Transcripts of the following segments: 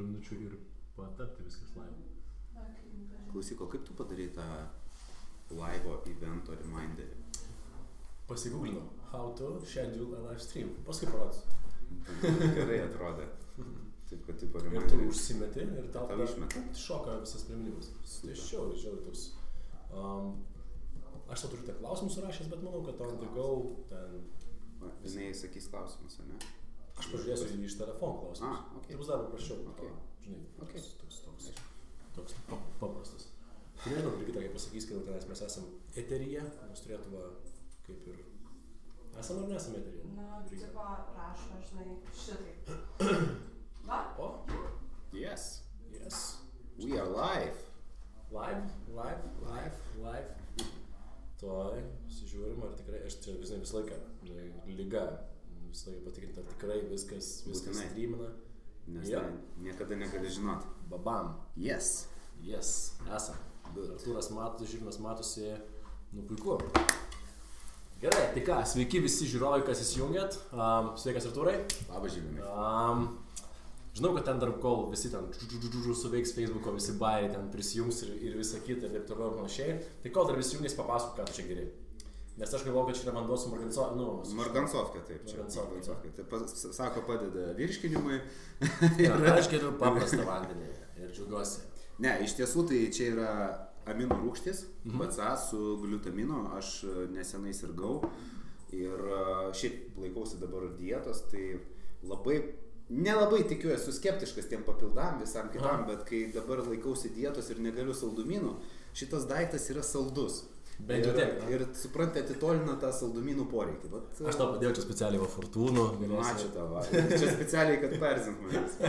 porą minučių ir patapti viskas live. Klausyk, o kaip tu padarai tą live evento reminderį? Pasigūglinau, how to schedule a live stream. Paskui parodysiu. Gerai atrodė. Taip, kad tipo Ir tu reminderį. užsimeti ir tau išmeta. šoka visas priminimas. Tai žiauriai toks. Aš tau turiu tą klausimus surašęs, bet manau, kad on the go ten... Žinai, sakys klausimus, ar ne? Aš pažiūrėsiu iš telefonų klausimus. Okay. Ir bus dar paprasčiau. Okay. Žinai, Okay. toks paprastas. Tai nežinau, Brigita, kaip pasakys, kad tenais mes esam eteryje, mes turėtume kaip ir... Esam ar nesam eteryje? Na, tipo, rašo, žinai, šitaip. Va? O? Yes. Yes. We are live. Live. Tuoj, sižiūrim, ar tikrai, aš čia visą laiką, lyga, visą laiką patikrinti, ar tikrai viskas Būtinai. streamina. Nes Jo. niekada negali žinoti. Babam. Yes. Yes, esam. Good. Artūras matos, Žilvinas matosi, nu puiku. Gerai, tai ką, sveiki visi žiūrovai, kas įsijungėt. Sveikas Artūrai. Labas, Žilvinai. Žinau, kad ten dar kol visi ten suveiks Facebooko, visi bairiai ten prisijungs ir visa kita ir taip toliau ir panašiai. Tai kol dar visi jungiasi, papasakok, ką tu čia geri. Nes aš galvoju, kad čia yra vanduo su Margansovka, taip. Čia Margansovka. Tai sako, padeda virškinimui. Aš geriu paprastą vandenį ir džiaugiuosi. Ne, iš tiesų tai čia yra aminų rūgštis, BCA su gliutaminu. Aš nesenai sirgau ir šiaip laikausi dabar dietos, tai nelabai tikiu, esu skeptiškas tiem papildam visam kitam, bet kai dabar laikausi dietos ir negaliu saldumynų, šitas daiktas yra saldus. Bent jau tiek. Ir suprantate, atitolina tą saldumynų poreikį. Aš tau padėjau čia specialiai va fortūnų. Ačiū tavo. Čia specialiai, kad perzint manęs.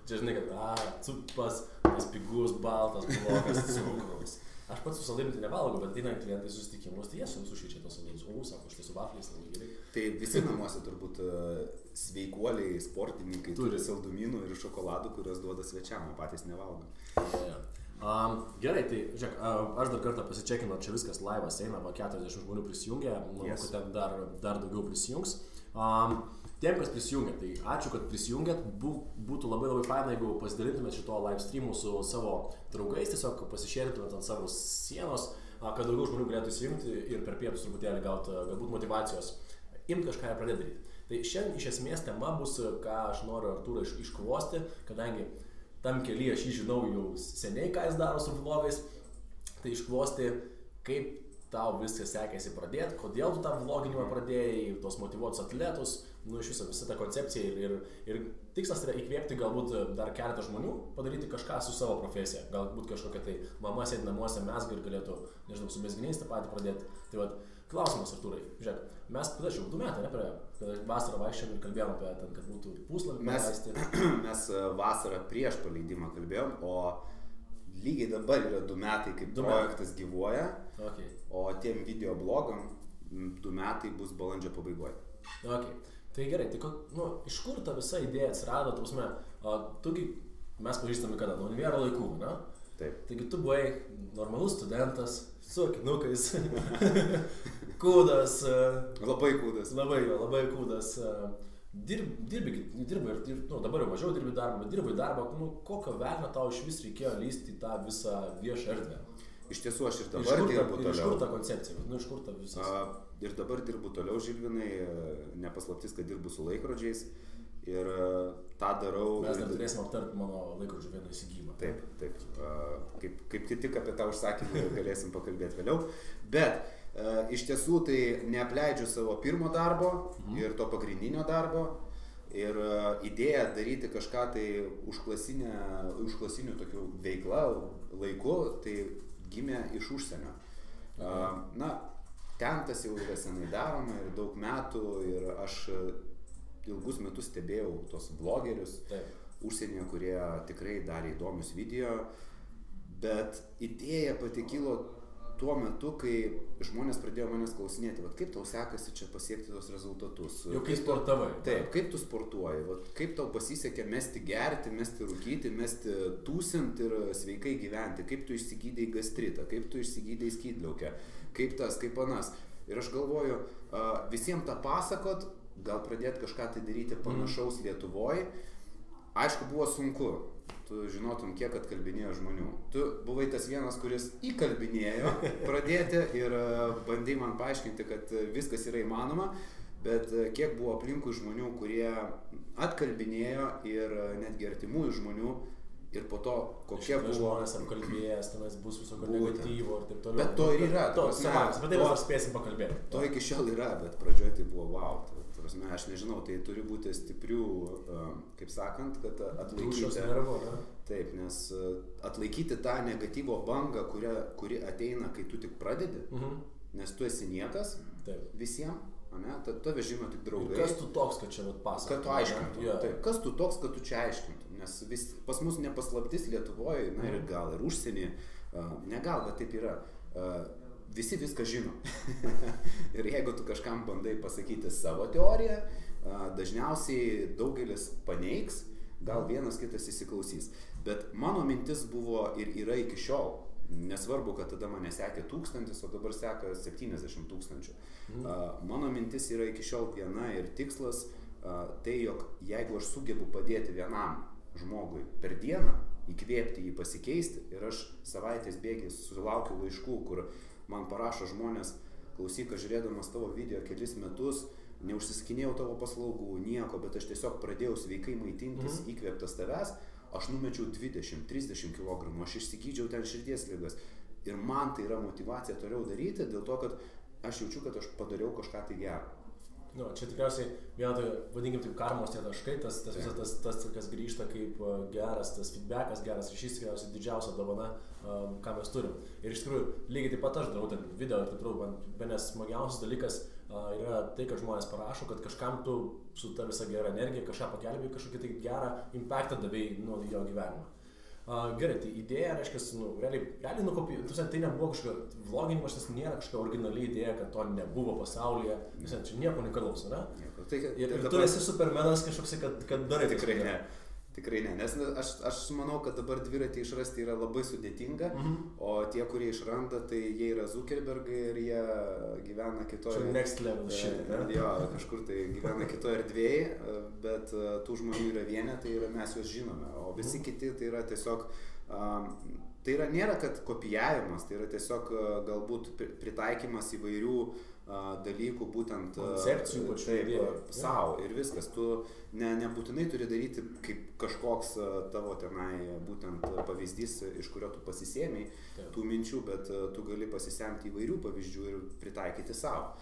Čia žinai, kad cupas, tas pigus, baltas, blogas, cukraus. Aš pats su saldainiu tai nevalgau, bet ateina klientai susitikimus, tai jie sušičia tos saldainius. Sako, štai su vafliais labai gerai. Tai visi namuose turbūt sveikuoliai, sportininkai turi saldumynų ir šokoladų, kuriuos duoda svečiam, o patys nevalgo. Gerai, tai žiūrėk, aš dar kartą pasičekinu, čia viskas laivas eina, 40 žmonių prisijungia, manau, kad ten dar daugiau prisijungs. Tiem, kas prisijungia, tai ačiū, kad prisijungiat, būtų labai faina, jeigu pasidalintumėt šito live streamu su savo draugais, tiesiog pasišėrintumėt ant savo sienos, kad daugiau žmonių galėtų įsijungti ir per pietus truputėlį gauti galbūt motyvacijos imti kažką ir pradėti daryti. Tai šiandien iš esmės tema bus, ką aš noriu Artūrą iškvosti, kadangi tam kelyje aš jį žinau jau seniai, ką jis daro su vlogais, tai iškvosti, kaip tau viskas sekėsi pradėti, kodėl tu tą vloginimą pradėjai, tos motyvuotus atletus, iš viso visą tą koncepciją ir tikslas yra įkvėpti galbūt dar keletą žmonių, padaryti kažką su savo profesija, galbūt kažkokia tai mama sėdi namuose mezga ir galėtų, nežinau, su mezginiais tą patį pradėti. Tai vat, klausimas Artūrai, žiūrėk, mes tada jau 2 metai, kada vasarą vaikščiam ir kalbėjom apie ten, kad būtų puslapį paleisti. Mes vasarą prieš paleidimą kalbėjom, o lygiai dabar yra 2 metai, kaip projektas gyvuoja, o tiem videoblogam 2 metai bus balandžio pabaigoje. Tai gerai, tai iš kur ta visa idėja atsirado, mes pažįstame kada, nuo univero laikų, ne? Taip. Taigi tu buvai normalus studentas, su akinukais, kūdas. Labai kūdas. Labai kūdas. Dirbi ir dabar jau mažiau dirbi darbą, bet dirbai darbą, kokio velnio tau iš vis reikėjo lysti į tą visą viešą erdvę? Iš tiesų aš ir dabar dirbu toliau. Iš kur ta koncepcija? Iš kur ta visas? Ir dabar dirbu toliau, Žilvinai, nepaslaptis, kad dirbu su laikrodžiais ir tą darau. Mes dar turėsim aptarti mano laikrodžių vieną įsigymą. Taip. Kaip tik apie tą užsakymą galėsim pakalbėti vėliau. Bet iš tiesų tai neapleidžiu savo pirmo darbo ir to pagrindinio darbo. Ir idėja daryti kažką tai užklasinių tokių veiklą laiku, tai gimė iš užsienio. Ten tas jau yra senai daroma ir daug metų ir aš ilgus metus stebėjau tos vlogerius užsienyje, kurie tikrai darė įdomius video, bet idėja pati kilo tuo metu, kai žmonės pradėjo manęs klausinėti, kaip tau sekasi čia pasiekti tos rezultatus. Jau kai sportavai. Taip, kaip tu sportuoji, kaip tau pasisekė mesti gerti, mesti rūkyti, mesti tūsint ir sveikai gyventi, kaip tu išsigydei gastritą, kaip tu išsigydei skydliaukę, kaip tas, kaip anas. Ir aš galvoju, visiems tą pasakot, gal pradėti kažką tai daryti panašaus Lietuvoje. aišku, buvo sunku. Tu žinotum, kiek atkalbinėjo žmonių. Tu buvai tas vienas, kuris įkalbinėjo pradėti ir bandai man paaiškinti, kad viskas yra įmanoma, bet kiek buvo aplinkui žmonių, kurie atkalbinėjo ir netgi artimųjų žmonių ir po to kokie buvo... žmonės apkalbėjęs, tenais bus visokio negatyvo ir taip toliau. Bet to ir yra. To, savams, bet tai mes spėsim pakalbėti. To iki šiol yra, bet pradžioje tai buvo wow. Aš nežinau, tai turi būti stiprių, kaip sakant, kad atlaikyti. Taip, nes atlaikyti tą negatyvo bangą, kuri ateina, kai tu tik pradedi, nes tu esi niekas visiems, tave žino tik draugai. Ir kas tu toks, kad čia pasakotum? Kad tu aiškintum. Taip, kas tu toks, kad tu čia aiškintum, nes pas mus nepaslaptis Lietuvoje, na ir gal ir užsienį, ne gal, bet taip yra. Visi viską žino. Ir jeigu tu kažkam bandai pasakyti savo teoriją, dažniausiai daugelis paneigs, gal vienas kitas įsiklausys. Bet mano mintis buvo ir yra iki šiol. Nesvarbu, kad tada mane sekė 1000, o dabar seka 70 000. Mano mintis yra iki šiol viena ir tikslas, tai jog jeigu aš sugebu padėti vienam žmogui per dieną, įkvėpti jį pasikeisti, ir aš savaitės bėgiais sulaukiu laiškų, kur man parašo žmonės, klausyk, aš žiūrėdamas tavo video kelis metus, neužsiskinėjau tavo paslaugų, nieko, bet aš tiesiog pradėjau sveikai maitintis, įkvėptas tavęs, aš numečiau 20-30 kg, aš išsigydžiau ten širdies ligas. Ir man tai yra motyvacija toliau daryti, dėl to, kad aš jaučiu, kad aš padariau kažką tai gerą. Nu, čia tikriausiai vietoj, vadinkim taip, karmos tie taškai, tas visas tas, kas grįžta kaip geras, tas feedbackas, geras ryšys, tikriausiai didžiausia dovana, ką mes turim. Ir iš tikrųjų, lygiai taip pat aš darau ten video ir taip toliau, man vienas smagiausias dalykas yra tai, kad žmonės parašo, kad kažkam tu su ta visa gera energija, kažką pagelbėjai, kažkokį tai gerą impactą davėjai jo gyvenimą. Gerai, tai idėja, reiškia, realiai nukopijuoti, tai nebuvo kažkokia vloginimas, tas nėra kažkokia originali idėja, kad to nebuvo pasaulyje, čia nieko unikalaus, ne? Ir tu esi supermenas kažkoks, kad darai tikrai ne. Tikrai ne, nes aš manau, kad dabar dviratį išrasti yra labai sudėtinga, o tie, kurie išranda, tai jie yra Zuckerbergai ir jie gyvena kitoje... Čia next level shit, ne? Jo, kažkur tai gyvena kitoje erdvėje, bet tų žmonių yra vienetai ir mes juos žinome, o visi kiti tai yra tiesiog... Tai yra nėra, kad kopijavimas, tai yra tiesiog galbūt pritaikymas įvairių dalykų, būtent koncepcijų savo ir viskas. Tu nebūtinai turi daryti kaip kažkoks tavo tenai būtent pavyzdys, iš kurio tu pasisėmei tų minčių, bet tu gali pasisemti įvairių pavyzdžių ir pritaikyti savo.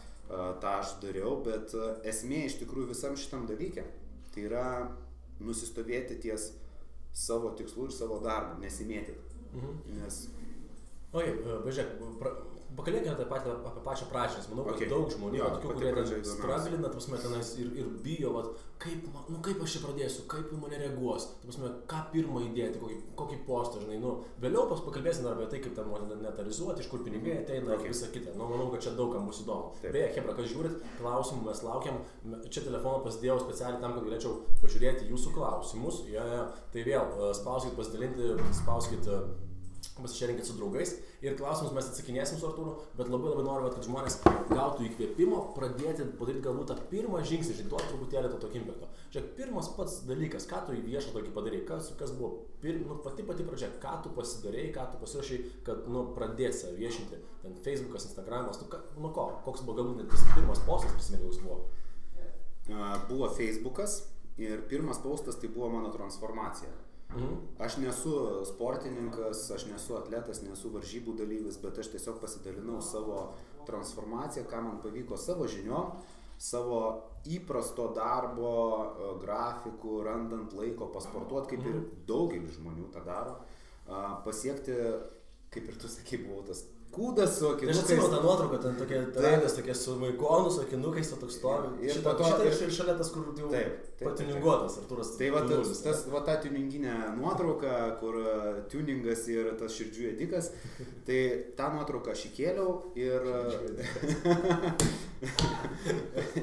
Ta aš dariau, bet esmė iš tikrųjų visam šitam dalyke tai yra nusistovėti ties savo tikslų ir savo darbų, nesimėtyti. Nes... Važiuok, pakalbėkime apie pačią pradžią, nes manau, kad daug žmonių, tokių, kurie stragglina, tenais ir bijo, kaip aš čia pradėsiu, kaip mane reaguos, ką pirmą įdėti, kokį postą, žinai, vėliau pakalbėsime apie tai, kaip ten monetarizuoti, iš kur pinigai ateina ir visą kitą. Manau, kad čia daugam bus įdomu. Beje, Chebra, kas žiūrit, klausimų mes laukiam, čia telefoną pasidėjau specialiai tam, kad galėčiau pažiūrėti jūsų klausimus, tai vėl spauskit pasidalinti, spauskit pasišerinkit su draugais ir klausimus mes atsakinėsim su Artūru, bet labai noriu, kad žmonės gautų įkvėpimo, pradėti padaryti galbūt tą pirmą žingsnį, duoti truputėlį to tokio impacto. Žiūrėk, pirmas pats dalykas, ką tu į viešą tokį padarei, kas buvo pati pradžia, ką tu pasidarei, ką tu pasirašai, kad pradėti save viešinti, ten Facebookas, Instagramas, koks buvo galbūt net pirmas postas, prisiminimus buvo? Buvo Facebookas ir pirmas postas tai buvo mano transformacija. Aš nesu sportininkas, aš nesu atletas, nesu varžybų dalyvis, bet aš tiesiog pasidalinau savo transformaciją, ką man pavyko savo žiniom, savo įprasto darbo, grafikų, randant laiko pasportuoti, kaip ir daugelis žmonių tą daro, pasiekti, kaip ir tu sakai, buvau tas kūdas su akinukais. Aš atsimenu tą nuotrauką, ten tokie su vaikonu, su akinukais, toks stovi. Šitą ir šalia tas, kur jau patiuninguotas, Artūras. Tai va ta tuninginė nuotrauka, kur tuningas ir tas širdžių ėdikas, tai tą nuotrauką aš įkėliau ir...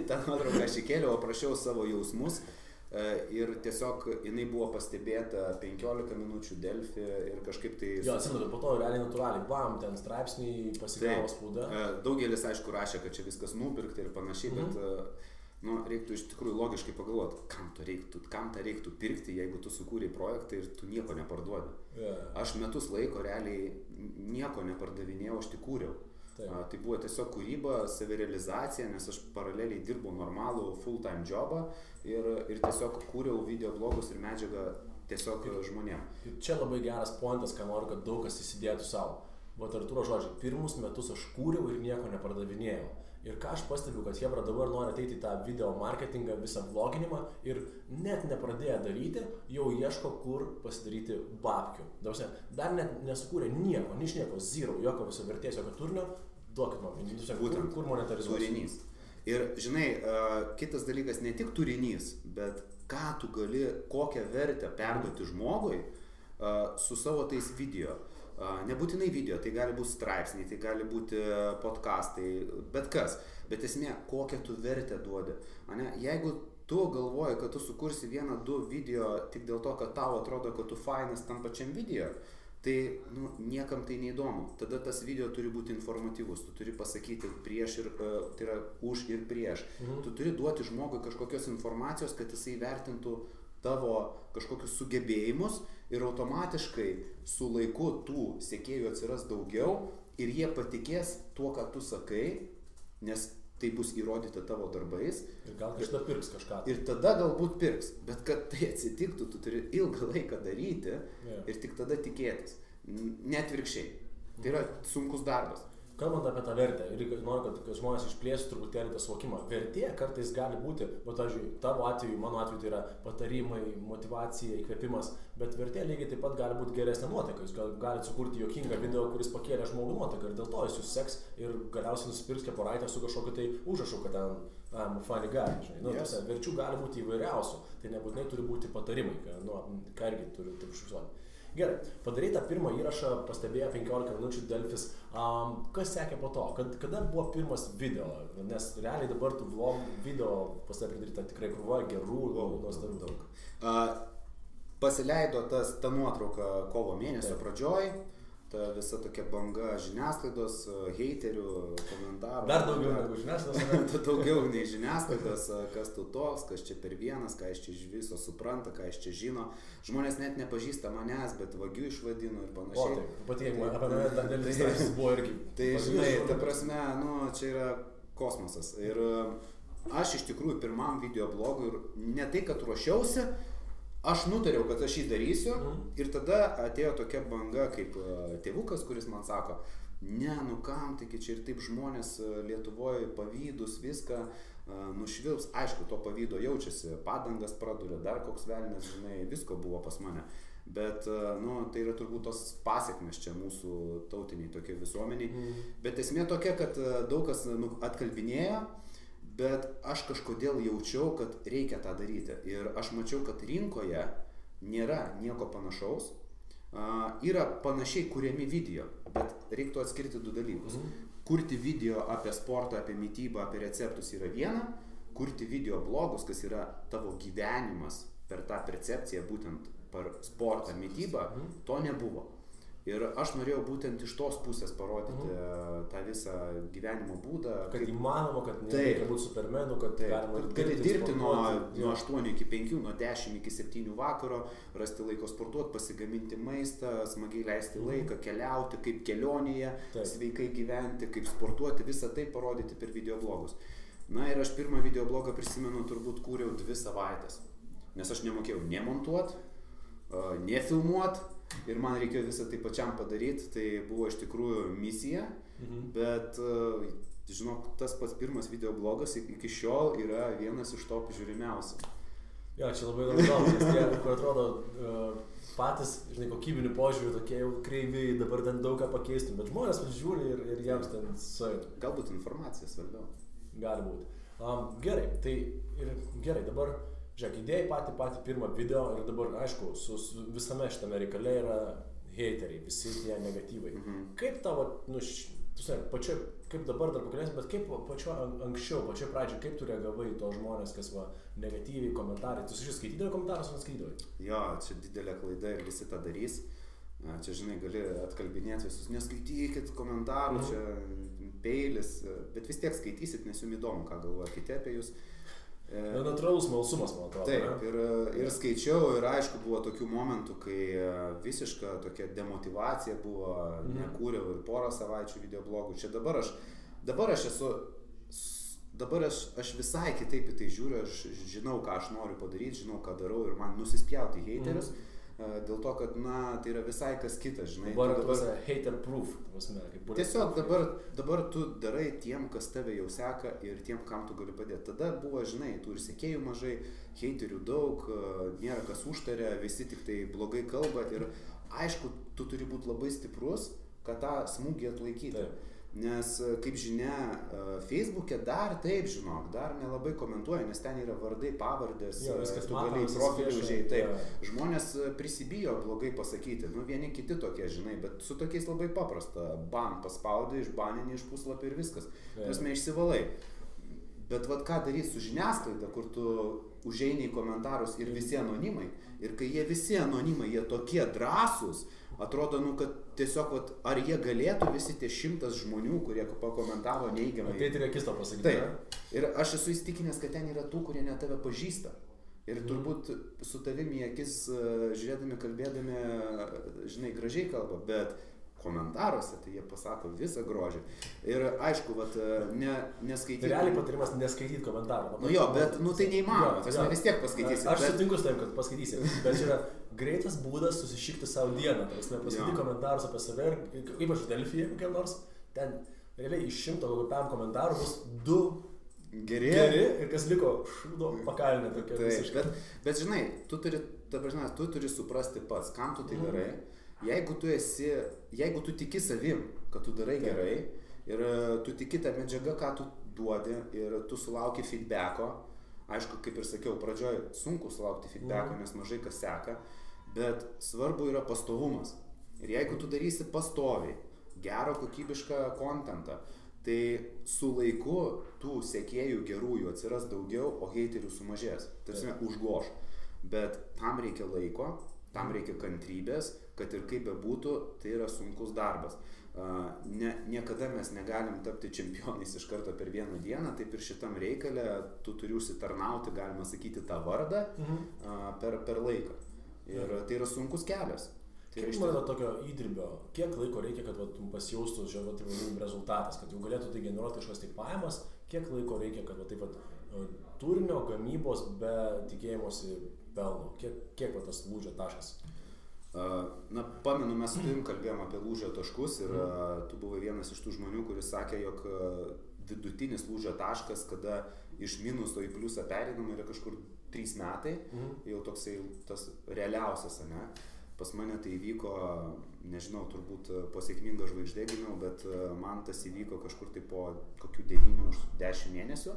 tą nuotrauką aš įkėliau, aprašiau savo jausmus. Ir tiesiog jinai buvo pastebėta 15 minučių Delfi ir kažkaip tai... Jo, atsimenu, po to realiai natūraliai, bam, ten straipsniai pasigavo spauda. Daugelis, aišku, rašė, kad čia viskas nupirkta ir panašiai, bet nu, reiktų iš tikrųjų logiškai pagalvoti, kam tą reiktų pirkti, jeigu tu sukūrei projektą ir tu nieko neparduodi. Aš metus laiko realiai nieko nepardavinėjau, aš tik kūriau. Tai buvo tiesiog kūryba, savirealizacija, nes aš paraleliai dirbau normalų full-time jobą ir tiesiog kūriau videoblogus ir medžiagą tiesiog žmonėm. Ir čia labai geras pointas, ką noriu, kad daug kas įsidėtų savo. Vat Artūro žodžiai, pirmus metus aš kūriau ir nieko nepardavinėjau. Ir ką aš pastebiu, kad Hebra dabar nori ateiti į tą video marketingą, visą vloginimą ir net nepradėję daryti, jau ieško, kur pasidaryti babkių. Dar net nesukūrė nieko, nieko, zero, jokio viso vertės, jokio turinio, duokit man, būtent, kur monetarizuoti. Turinys. Ir žinai, kitas dalykas, ne tik turinys, bet ką tu gali, kokią vertę perduoti žmogui su savo tais video. Nebūtinai video, tai gali būti straipsniai, tai gali būti podcastai, bet kas. Bet esmė, kokią tu vertę duodi. Jeigu tu galvoji, kad tu sukursi 1-2 video tik dėl to, kad tau atrodo, kad tu fainas tam pačiam video, tai niekam tai neįdomu. Tada tas video turi būti informatyvus, tu turi pasakyti prieš ir, tai yra už ir prieš. Tu turi duoti žmogui kažkokios informacijos, kad jisai vertintų tavo kažkokius sugebėjimus ir automatiškai su laiku tų sekėjų atsiras daugiau ir jie patikės tuo, ką tu sakai, nes tai bus įrodyta tavo darbais. Ir gal kažką pirks kažką. Ir tada galbūt pirks, bet kad tai atsitiktų, tu turi ilgą laiką daryti ir tik tada tikėtis. Net virkščiai. Tai yra sunkus darbas. Kalbant apie tą vertę, ir noriu, kad žmonės išplėstų truputėlį tą suvokimą. Vertė kartais gali būti, tavo atveju, mano atveju tai yra patarimai, motyvacija, įkvėpimas, bet vertė lygiai taip pat gali būti geresnė nuotaika. Jūs galite sukurti juokingą video, kuris pakėlė žmogų nuotaiką ir dėl to jis jūs seks ir galiausiai nusipirks kepuraitę su kažkokiu tai užrašu, kad ten funny guy, žinai. Verčių gali būti įvairiausių, tai nebūtinai turi būti patarimai, ką irgi turi užfiksuoti. Gerai, padarai tą pirmą įrašą, pastebėjo 15 minučių Delfis. Kas sekė po to? Kada buvo pirmas video? Nes realiai dabar tų vlog video pas tave pridaryta tikrai krūva gerų, nuostabių daug. Pasileido ta nuotrauka kovo mėnesio pradžioj. Ta visa tokia banga žiniasklaidos, heiterių, komentarų. Dar daugiau negu žiniasklaidos. Daugiau nei žiniasklaidos, kas tu toks, kas čia per vienas, ką iš čia iš viso supranta, ką iš čia žino. Žmonės net nepažįsta manęs, bet vagių išvadino ir panašiai. O taip, patikėk, apie mane dar dėlis straipsnis buvo irgi. Tai žinai, ta prasme, čia yra kosmosas. Ir aš iš tikrųjų pirmam videoblogui ir ne tai, kad ruošiausi, aš nutariau, kad aš jį darysiu ir tada atėjo tokia banga kaip tėvukas, kuris man sako, kam, taigi čia ir taip žmonės Lietuvoje pavydus viską nušvilps. Aišku, to pavydo jaučiasi, padangas praduria, dar koks velnias, žinai, visko buvo pas mane. Bet, tai yra turbūt tos pasiekmes čia mūsų tautiniai tokie visuomeniai. Bet esmė tokia, kad daug kas atkalbinėjo, bet aš kažkodėl jaučiau, kad reikia tą daryti. Ir aš mačiau, kad rinkoje nėra nieko panašaus. Yra panašiai kuriami video, bet reiktų atskirti 2 dalykus. Kurti video apie sportą, apie mitybą, apie receptus yra viena. Kurti video blogus, kas yra tavo gyvenimas per tą percepciją, būtent per sportą, mitybą, to nebuvo. Ir aš norėjau būtent iš tos pusės parodyti tą visą gyvenimo būdą. Kad įmanoma, kad nereikia būti supermenu, kad galima gali dirbti nuo 8 iki 5, nuo 10 iki 7 vakaro, rasti laiko sportuoti, pasigaminti maistą, smagiai leisti laiką, keliauti, kaip kelionėje, sveikai gyventi, kaip sportuoti, visą tai parodyti per videoblogus. Ir aš pirmą videoblogą prisimenu, turbūt kūriau 2 savaitės, nes aš nemokėjau nemontuoti, nefilmuoti. Ir man reikėjo visą tai pačiam padaryti, tai buvo iš tikrųjų misija, bet, žinok, tas pats pirmas videoblogas iki šiol yra vienas iš top žiūrimiausių. Jo, čia labai įdomu, nes tie, kur atrodo patys, žinai, kokybinių požiūrių tokie jau kreiviai, dabar ten daug ką pakeistum, bet žmonės žiūri ir jiems ten suėtų. Galbūt informacija svarbiau. Gali būti. Gerai, dabar... Žiūrėk, idėjai patį pirmą video ir dabar, aišku, su visame šitame reikale yra heiteriai, visi tie negatyvai. Kaip tavo, kaip dabar dar pakalbėsim, bet kaip anksčiau, pačioj pradžioj, kaip tu reagavai į tos žmonės, kas negatyviai komentarai? Tu šis skaitydavai komentarus, ar neskaitydavai? Jo, čia didelė klaida ir visi tą darys. Čia, žinai, gali atkalbinėti visus, neskaitykit komentarų, čia peilis, bet vis tiek skaitysit, nes jums įdomu, ką galvoja kiti apie jūs. Natūralus smalsumas, man atrodo. Taip, ir skaičiau, ir aišku, buvo tokių momentų, kai visiška tokia demotivacija buvo, nekūriau ir porą savaičių videoblogų. Čia dabar aš visai kitaip į tai žiūriu, aš žinau, ką aš noriu padaryti, žinau, ką darau ir man nusispjauti heiterius. Dėl to, kad, tai yra visai kas kitas, žinai. Dabar hater proof, tiesiog dabar tu darai tiem, kas tave jau seka ir tiem, kam tu gali padėti. Tada buvo, žinai, tų ir sekėjų mažai, heiterių daug, nėra kas užtaria, visi tik tai blogai kalba ir aišku, tu turi būti labai stiprus, kad tą smūgį atlaikyti. Taip. Nes, kaip žinia, Facebook'e dar taip, žinok, dar nelabai komentuoja, nes ten yra vardai, pavardės, tu gali profilį užėjti, taip. Žmonės prisibijo blogai pasakyti, vieni kiti tokie, žinai, bet su tokiais labai paprasta. Ban paspaudai, išbaninį iš puslapį ir viskas. Prasme, išsivalai. Bet vat ką daryti su žiniasklaida, kur tu užeini į komentarus ir visi anonimai. Ir kai jie visi anonimai, jie tokie drąsūs, atrodo, kad tiesiog, ar jie galėtų visi tie 100 žmonių, kurie pakomentavo neigiamai. Ateiti ir akis to pasakyti. Taip. Ir aš esu įsitikinęs, kad ten yra tų, kurie net tave pažįsta. Ir turbūt su tavimi akis žiūrėdami, kalbėdami, žinai, gražiai kalba, bet komentaruose tai jie pasako visą grožį. Ir aišku, neskaityti. Tai realiai patarimas neskaityti komentarų. Bet tai neįmanoma, vis tiek paskaitysi. Aš sutinku su tavim, kad paskaitysi, bet čia yra greitas būdas susišikti savo dieną. Paskaityti komentarus apie save ir kaip aš Delfyje kokiam nors, ten realiai iš 100 kokiam komentarų bus 2 geri ir kas liko šūdo pakalinė tokia visiškai. Bet žinai, tu turi suprasti pats, kam tu tai darai. Jeigu tu tiki savim, kad tu darai gerai ir tu tiki tą medžiagą, ką tu duodi ir tu sulauki feedbacko, aišku, kaip ir sakiau, pradžioj sunku sulaukti feedbacko, nes mažai kas seka, bet svarbu yra pastovumas. Ir jeigu tu darysi pastoviai, gerą kokybišką kontentą, tai su laiku tų sekėjų gerųjų atsiras daugiau, o heiterių sumažės. Tai užgoš. Bet tam reikia laiko, tam reikia kantrybės, kad ir kaip bebūtų, tai yra sunkus darbas. Niekada mes negalim tapti čempionais iš karto per vieną dieną, taip ir šitam reikale tu turi užsitarnauti, galima sakyti, tą vardą per laiką. Ir tai yra sunkus kelias. Kiek man tokio įdirbio, kiek laiko reikia, kad pasijaustų rezultatas, kad jau galėtų tai generuoti kažkas tai pajamas, kiek laiko reikia, kad turinio gamybos be tikėjimosi pelno, kiek tas lūžio taškas? Pamenu, mes su tavim kalbėjom apie lūžio taškus ir tu buvai vienas iš tų žmonių, kuris sakė, jog vidutinis lūžio taškas, kada iš minuso į pliusą pereinama yra kažkur 3 metai, jau toksai tas realiausias, ne? Pas mane tai įvyko, nežinau, turbūt po sėkmingo žvaigždė gimiau, bet man tas įvyko kažkur tai po kokių 9-10 mėnesių.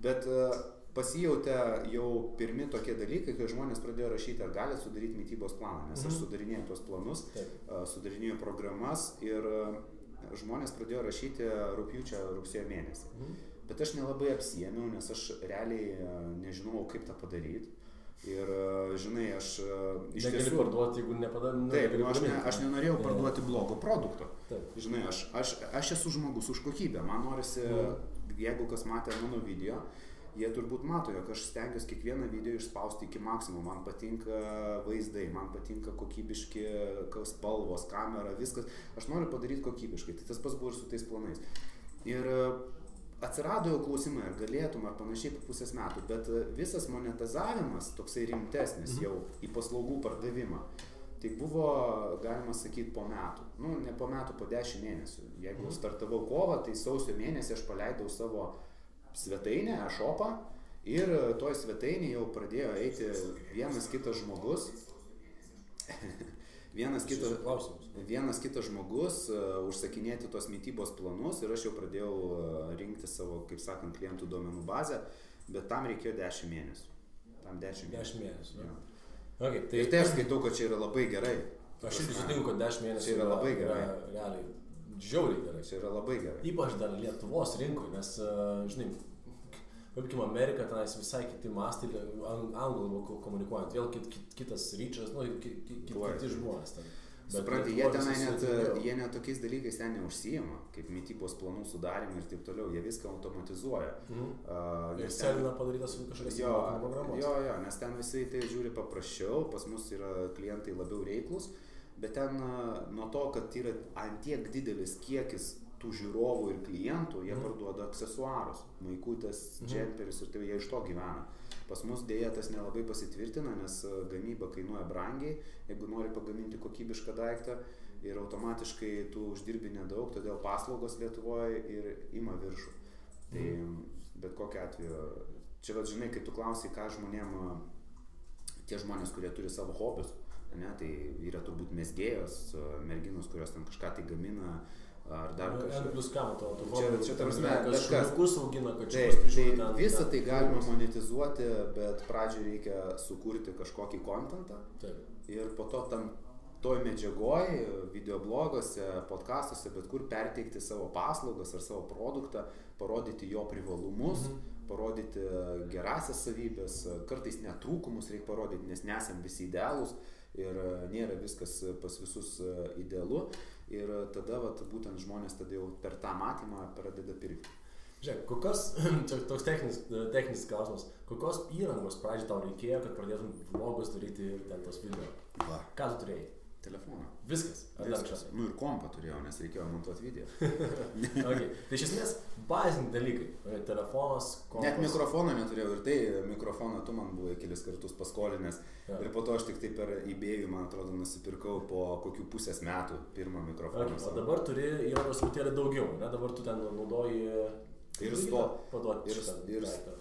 Bet pasijautė jau pirmi tokie dalykai, kai žmonės pradėjo rašyti, ar galite sudaryti mitybos planą, nes aš sudarinėjau tuos planus, sudarinėjau programas ir žmonės pradėjo rašyti rugsėjo mėnesį. Bet aš nelabai apsiėmiau, nes aš realiai nežinau, kaip tą padaryti. Ir žinai, aš iš tiesų... Negali parduoti, jeigu nepadarė... Taip, aš nenorėjau parduoti blogo produkto. Žinai, aš esu žmogus už kokybę. Man norisi, jeigu kas matė mano video, jie turbūt mato, jog aš stengiuosi kiekvieną video išspausti iki maksimumo. Man patinka vaizdai, man patinka kokybiški spalvos, kamera, viskas. Aš noriu padaryti kokybiškai. Tai tas pats buvo ir su tais planais. Ir atsirado jau klausimai, ar galėtum, ar panašiai po pusės metų, bet visas monetizavimas, toksai rimtesnis jau į paslaugų pardavimą, tai buvo, galima sakyti, po metų. Ne po metų, po 10 mėnesių. Jeigu startavau kovą, tai sausio mėnesį aš paleidau savo svetainę, e-shopą ir toj svetainėje jau pradėjo eiti vienas kitas žmogus. Vienas kitas žmogus užsakinėti tos mitybos planus ir aš jau pradėjau rinkti savo, kaip sakant, klientų duomenų bazę, bet tam reikėjo 10 mėnesių. Tam 10 mėnesių. Ja. Okay, ir tai aš skaitau, kad čia yra labai gerai. Aš irgi sutinku, kad 10 mėnesių yra labai gerai. Realiai žiauriai gerai. Čia yra labai gerai. Ypač dar Lietuvos rinkoje, nes, žinai, pavykim, Amerika, tenais visai kiti mastai, anglų komunikuojant, vėl kitas ryčas, kiti žmonės ten. Supranti, jie net tokiais dalykais ten neužsijima, kaip mitybos planų sudarimai ir taip toliau, jie viską automatizuoja. Excelina padarytas kažkokias programos. Jo, nes ten visi tai žiūri paprasčiau, pas mus yra klientai labiau reiklus, bet ten nuo to, kad yra antiek didelis kiekis tų žiūrovų ir klientų, jie parduoda aksesuarus, maikutės, džemperius ir tai jie iš to gyvena. Pas mus dėja tas nelabai pasitvirtina, nes gamyba kainuoja brangiai, jeigu nori pagaminti kokybišką daiktą ir automatiškai tu uždirbi nedaug, todėl paslaugos Lietuvoje ir ima viršų. Tai bet kokiu atveju, čia vat žinai, kai tu klausai, ką žmonėm, tie žmonės, kurie turi savo hobius, ne, tai yra turbūt mezgėjos, merginos, kurios ten kažką tai gamina, ar dar kažkas. Plus ką, čia prasme, bet kas augina, kad tai visą tai galima monetizuoti, bet pradžioje reikia sukurti kažkokį kontentą ir po to toj medžiagoj, videobloguose, podcastuose, bet kur perteikti savo paslaugas ar savo produktą, parodyti jo privalumus, parodyti gerasias savybės, kartais net trūkumus reikia parodyti, nes nesam visi idealūs ir nėra viskas pas visus idealu. Ir tada būtent žmonės tada jau per tą matymą pradeda pirkti. Žiūrėk, kokios, čia toks techninis klausimas, kokios įrangos pradžiai tau reikėjo, kad pradėtum vlogus daryti ir ten tos video? Ką tu turėjai? Telefoną. Viskas? Viskas. Ir kompą turėjau, nes reikėjo montuoti video. Okay. Tai iš esmės baziniai dalykai. Telefonas, kompas. Net mikrofoną neturėjau ir tai mikrofoną tu man buvai kelis kartus paskolinęs. Ir po to aš tik tai per eBay'ų, man atrodo, nusipirkau po kokių pusės metų pirmą mikrofoną. O dabar turi įrangos truputėlį daugiau, ne? Dabar tu ten naudoji ir paduoti šitą.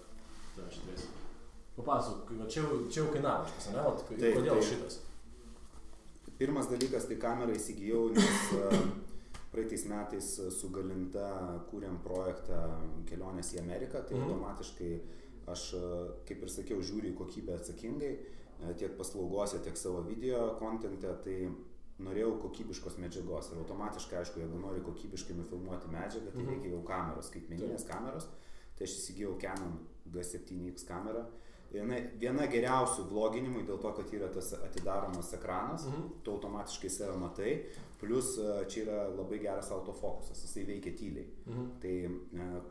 Papasuk, čia jau kainavo šitas, ne? Kodėl šitas? Pirmas dalykas, tai kamerą įsigijau, nes praeitais metais su Galinta kūrėm projektą kelionės į Ameriką, tai automatiškai aš, kaip ir sakiau, žiūriu į kokybę atsakingai, tiek paslaugose, tiek savo video kontente, tai norėjau kokybiškos medžiagos ir automatiškai, aišku, jeigu nori kokybiškai nufilmuoti medžiagą, tai reikia jau kameros, skaitmeninės kameros, tai aš įsigijau Canon G7X kamerą. Viena geriausių vloginimui dėl to, kad yra tas atidaromas ekranas, tu automatiškai save matai, plus čia yra labai geras autofokusas, jisai veikia tyliai. Tai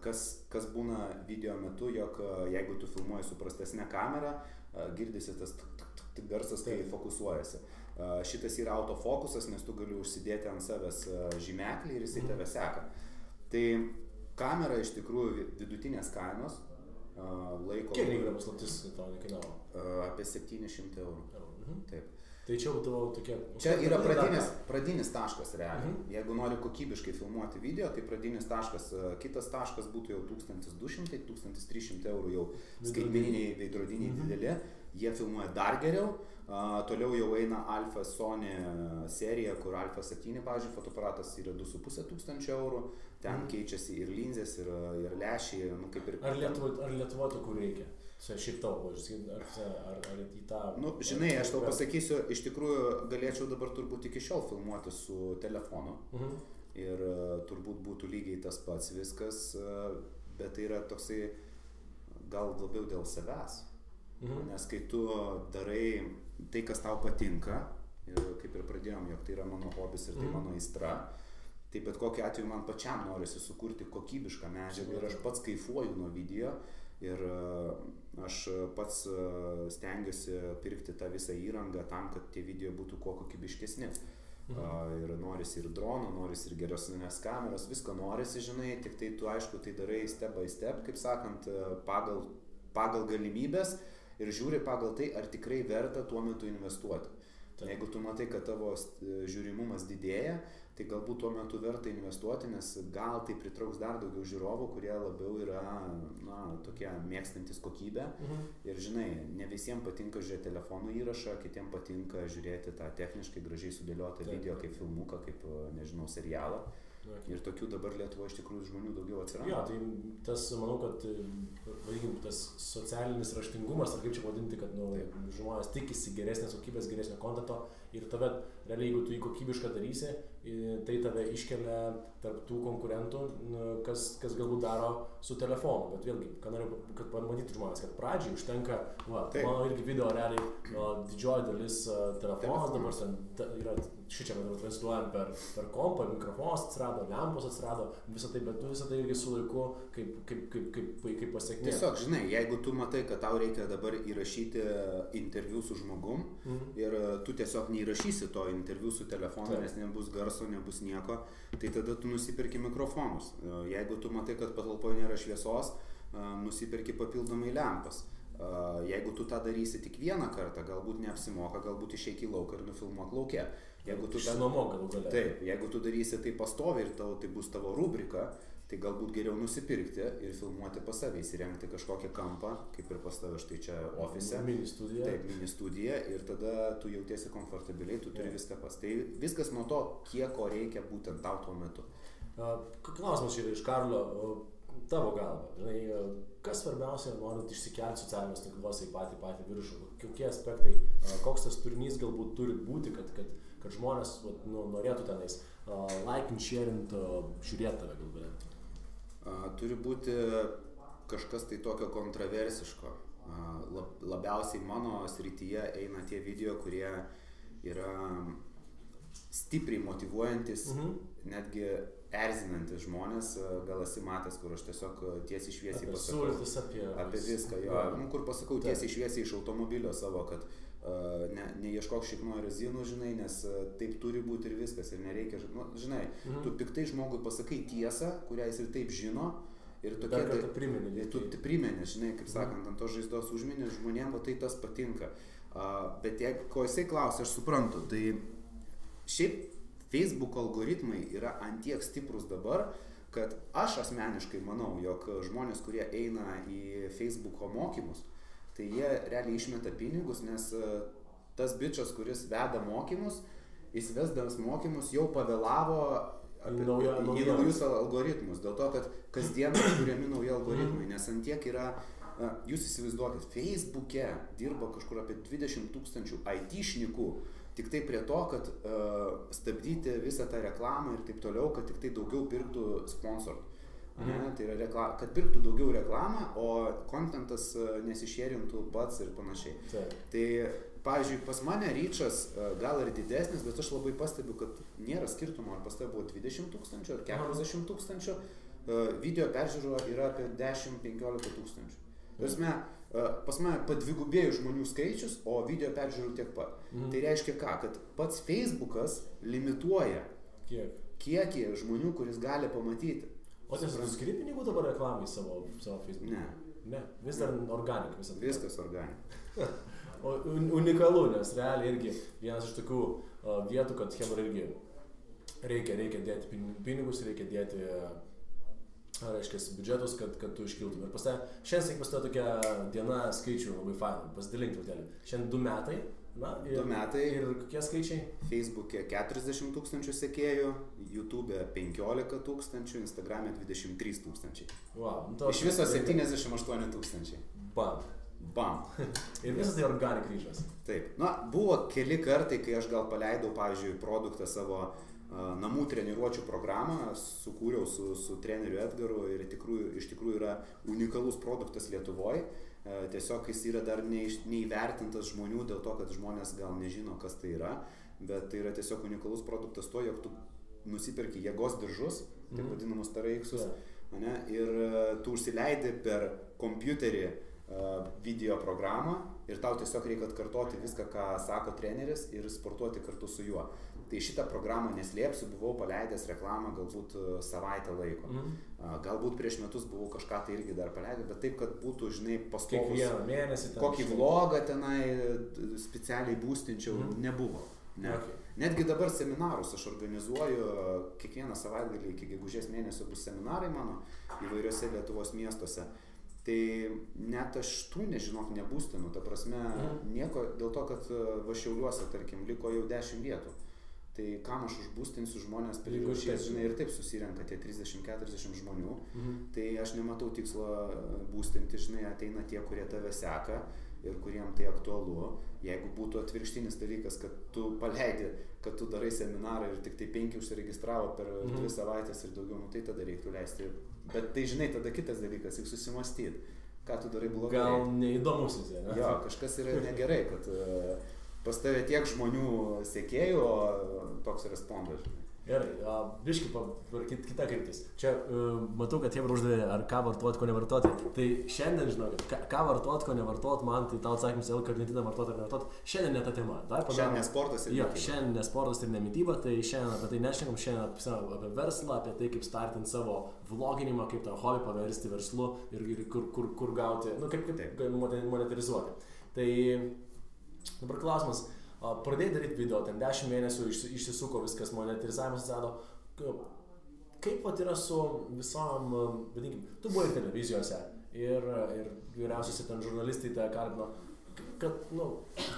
kas būna video metu, jog jeigu tu filmuoji su prastesne kamera, girdisi tas garsas, kai fokusuojasi. Šitas yra autofokusas, nes tu gali užsidėti ant savęs žymeklį ir jisai tave seka. Tai kamera iš tikrųjų vidutinės kainos. Kiek reikia paslaptis tau nekainavo? Apie 700 eurų. Taip. Tai čia būtų tokie... Čia yra pradinis taškas realiai. Jeigu nori kokybiškai filmuoti video, tai pradinis taškas, kitas taškas būtų jau 1200-1300 eurų jau skaitmeniniai veidrodiniai dideli. Jie filmuoja dar geriau. Toliau jau eina Alpha Sony serija, kur Alpha 7, pavyzdžiui, fotoaparatas yra 2500 eurų. Ten keičiasi ir linzės, ir lęšiai, kaip ir... Ar Lietuvoje tokių reikia? Šiaip tavo, ar į tą... Žinai, aš tau pasakysiu, iš tikrųjų galėčiau dabar turbūt iki šiol filmuoti su telefonu. Ir turbūt būtų lygiai tas pats viskas, bet tai yra toksai gal labiau dėl savęs. Nes kai tu darai tai, kas tau patinka, ir kaip ir pradėjom, jog tai yra mano hobis ir tai mano aistra, tai bet kokiu atveju man pačiam norisi sukurti kokybišką medžiagą ir aš pats kaifuoju nuo video ir aš pats stengiuosi pirkti tą visą įrangą tam, kad tie video būtų kuo kokybiškesni. Ir norisi ir drono, norisi ir geresnės kameros, visko norisi, žinai, tik tai tu aišku tai darai step by step, kaip sakant, pagal galimybės ir žiūri pagal tai, ar tikrai verta tuo metu investuoti. Jeigu tu matai, kad tavo žiūrimumas didėja, tai galbūt tuo metu verta investuoti, nes gal tai pritrauks dar daugiau žiūrovų, kurie labiau yra tokie mėgstantis kokybę. Ir žinai, ne visiems patinka žiūrėti telefonų įrašą, kitiems patinka žiūrėti tą techniškai gražiai sudėliotą video kaip filmuką, kaip, nežinau, serialą. Ir tokių dabar Lietuvoje iš tikrųjų žmonių daugiau atsiranda. Jo, tai tas, manau, kad vadinkim, tas socialinis raštingumas, ar kaip čia vadinti, kad žmonės tikisi geresnės kokybės, geresnio kontento ir tave, realiai, jeigu tu jį kokybišką darysi, tai tave iškelia tarp tų konkurentų, kas galbūt daro su telefonu. Bet vėlgi, ką noriu, kad pamatytų žmonės, kad pradžiai užtenka, mano irgi video realiai didžioji dalis telefonas dabar yra, šičia mes dabar transliuojam per kompą, mikrofonas atsirado, lempos atsirado, visą tai, bet tu visą tai irgi su laiku kaip pasiekmė. Tiesiog, žinai, jeigu tu matai, kad tau reikia dabar įrašyti interviu su žmogum ir tu tiesiog neįrašysi to interviu su telefonu, nes nebus garso, nebus nieko, tai tada tu nusipirki mikrofonus. Jeigu tu matai, kad patalpoje nėra šviesos, nusipirki papildomai lempas. Jeigu tu tą darysi tik vieną kartą, galbūt neapsimoka, galbūt išeik į lauką ir nufilmuok lauke. Išsinuomok galų gale. Taip, jeigu tu darysi tai pastoviai ir tai bus tavo rubrika, tai galbūt geriau nusipirkti ir filmuoti pas save, įsirengti kažkokią kampą, kaip ir pas tave štai čia ofise. Mini studija. Taip, mini studija ir tada tu jautiesi komfortabiliai, tu turi viską pas. Tai viskas nuo to, kiek ko reikia būtent tau tuo metu. Klausimas yra iš Karlio, tavo galva. Žinai, kas svarbiausia, norint išsikelti socialinius tinkluose į patį viršų? Kokie aspektai, koks tas turinys galbūt turi būti, kad žmonės norėtų tenais laikint, sharint, žiūrėti tave galbūt? Turi būti kažkas tai tokio kontroversiško. Labiausiai mano srityje eina tie video, kurie yra stipriai motyvuojantis, netgi erzinantis žmonės. Gal esi matęs, kur aš tiesiog tiesiai šviesiai pasakau apie viską, kur pasakau tiesiai šviesiai iš automobilio savo, kad neieškok šikno rezinų, žinai, nes taip turi būti ir viskas, ir nereikia, žinai, tu piktai žmogui pasakai tiesą, kurią jis ir taip žino, ir tokie tu primeni, žinai, kaip sakant, ant to žaizdos užmini, žmonėm tai tas patinka. Bet jeigu ko jisai klausia, aš suprantu, tai šiaip Facebook algoritmai yra antiek stiprus dabar, kad aš asmeniškai manau, jog žmonės, kurie eina į Facebooko mokymus, tai jie realiai išmeta pinigus, nes tas bičas, kuris veda mokymus, jis vesdamas mokymus jau pavėlavo į naujus algoritmus. Dėl to, kad kasdien kuriami nauji algoritmai, nes antiek yra, jūs įsivaizduokit, Facebook'e dirba kažkur apie 20 000 IT-šnikų, tik tai prie to, kad stabdyti visą tą reklamą ir taip toliau, kad tik tai daugiau pirktų sponsorų. Tai yra kad pirktų daugiau reklamą, o kontentas nesišėrintų pats ir panašiai. Tai, pavyzdžiui, pas mane ryčas gal ir didesnis, bet aš labai pastebiu, kad nėra skirtumo, ar pas tai buvo 20 000 ar 40 000, video peržiūro yra apie 10-15 000. Pas mane padvigubėjo žmonių skaičius, o video peržiūrų tiek pat. Tai reiškia ką? Kad pats Facebookas limituoja kiekį žmonių, kuris gali pamatyti. O tu skiri pinigų dabar reklamai savo Facebook'e? Ne. Vis dar organik visą. Viskas organik. O unikalu, nes realiai irgi vienas iš tokių vietų, kad hebra irgi reikia dėti pinigus, reikia dėti biudžetus, kad tu iškiltum. Ir šiandien pas tokia diena skaičių labai fainų, pasidalink truputėlį. Šiandien 2 metai. 2 metai. Ir kokie skaičiai? Facebook'e 40 000 sekėjų, YouTube'e 15 000, Instagram'e 23 000. Wow, iš viso 78 000. Bam. Ir visas tai organik ryžas. Taip. Buvo keli kartai, kai aš gal paleidau, pavyzdžiui, produktą savo namų treniruočių programą, sukūriau su treneriu Edgaru ir iš tikrųjų yra unikalus produktas Lietuvoje. Tiesiog jis yra dar neįvertintas žmonių dėl to, kad žmonės gal nežino, kas tai yra, bet tai yra tiesiog unikalus produktas to, jog tu nusipirki jėgos diržus, taip vadinamus TRX-us, ir tu užsileidi per kompiuterį video programą ir tau tiesiog reikia atkartoti viską, ką sako treneris ir sportuoti kartu su juo. Tai šitą programą neslėpsiu, buvau paleidęs reklamą galbūt savaitę laiko. Galbūt prieš metus buvau kažką tai irgi dar paleidęs, bet taip, kad būtų, žinai, pastovus. Kiekvieną mėnesį. Kokį vlogą tenai specialiai būstinčiau, nebuvo. Ne. Okay. Netgi dabar seminarus aš organizuoju, kiekvieną savaitgalį iki gegužės mėnesio bus seminarai mano įvairiose Lietuvos miestuose. Tai net aš tų, nežinok, nebūstinu, ta prasme, nieko, dėl to, kad va Šiauliuose, tarkim, liko jau 10 vietų. tai kam aš užbūstinsiu žmonės prirašys, žinai, ir taip susirenka tie 30-40 žmonių, tai aš nematau tikslo būstinti, žinai, ateina tie, kurie tave seka ir kuriem tai aktualu. Jeigu būtų atvirkštinis dalykas, kad tu paleidi, kad tu darai seminarą ir tik tai 5 užsiregistravo per 2 savaitės ir daugiau, nu tai tada reiktų leisti. Bet tai, žinai, tada kitas dalykas, reikia susimastyti, ką tu darai blogai. Gal neįdomus jis, ne? Jo, kažkas yra negerai, kad pas tave tiek žmonių sekėjų, o toks respondas. Gerai, biški kita kryptis. Čia matau, kad Hebra uždavė, ar ką vartoti, ko nevartoti. Tai šiandien, žinokit, ką vartoti, ko nevartoti, man tai tau atsakymas, L-karnitiną vartoti ar nevartoti, šiandien ne ta tema. Šiandien ne sportas ir nemitybą. Šiandien ne sportas ir nemitybą, tai šiandien apie tai nešnekam, šiandien apie verslą, apie tai, kaip startinti savo vloginimą, kaip tą hobį paversti verslu ir kur gauti, nu kaip monetarizuoti. Tai dabar klausimas. Pradėjai daryti video, ten 10 mėnesių išsisuko viskas, monetarizavimas atsirado. Kaip vat yra su visom, vadinkim, tu buvai ir televizijose, ir vyriausiuose ten žurnalistai te kalbino, kad, nu,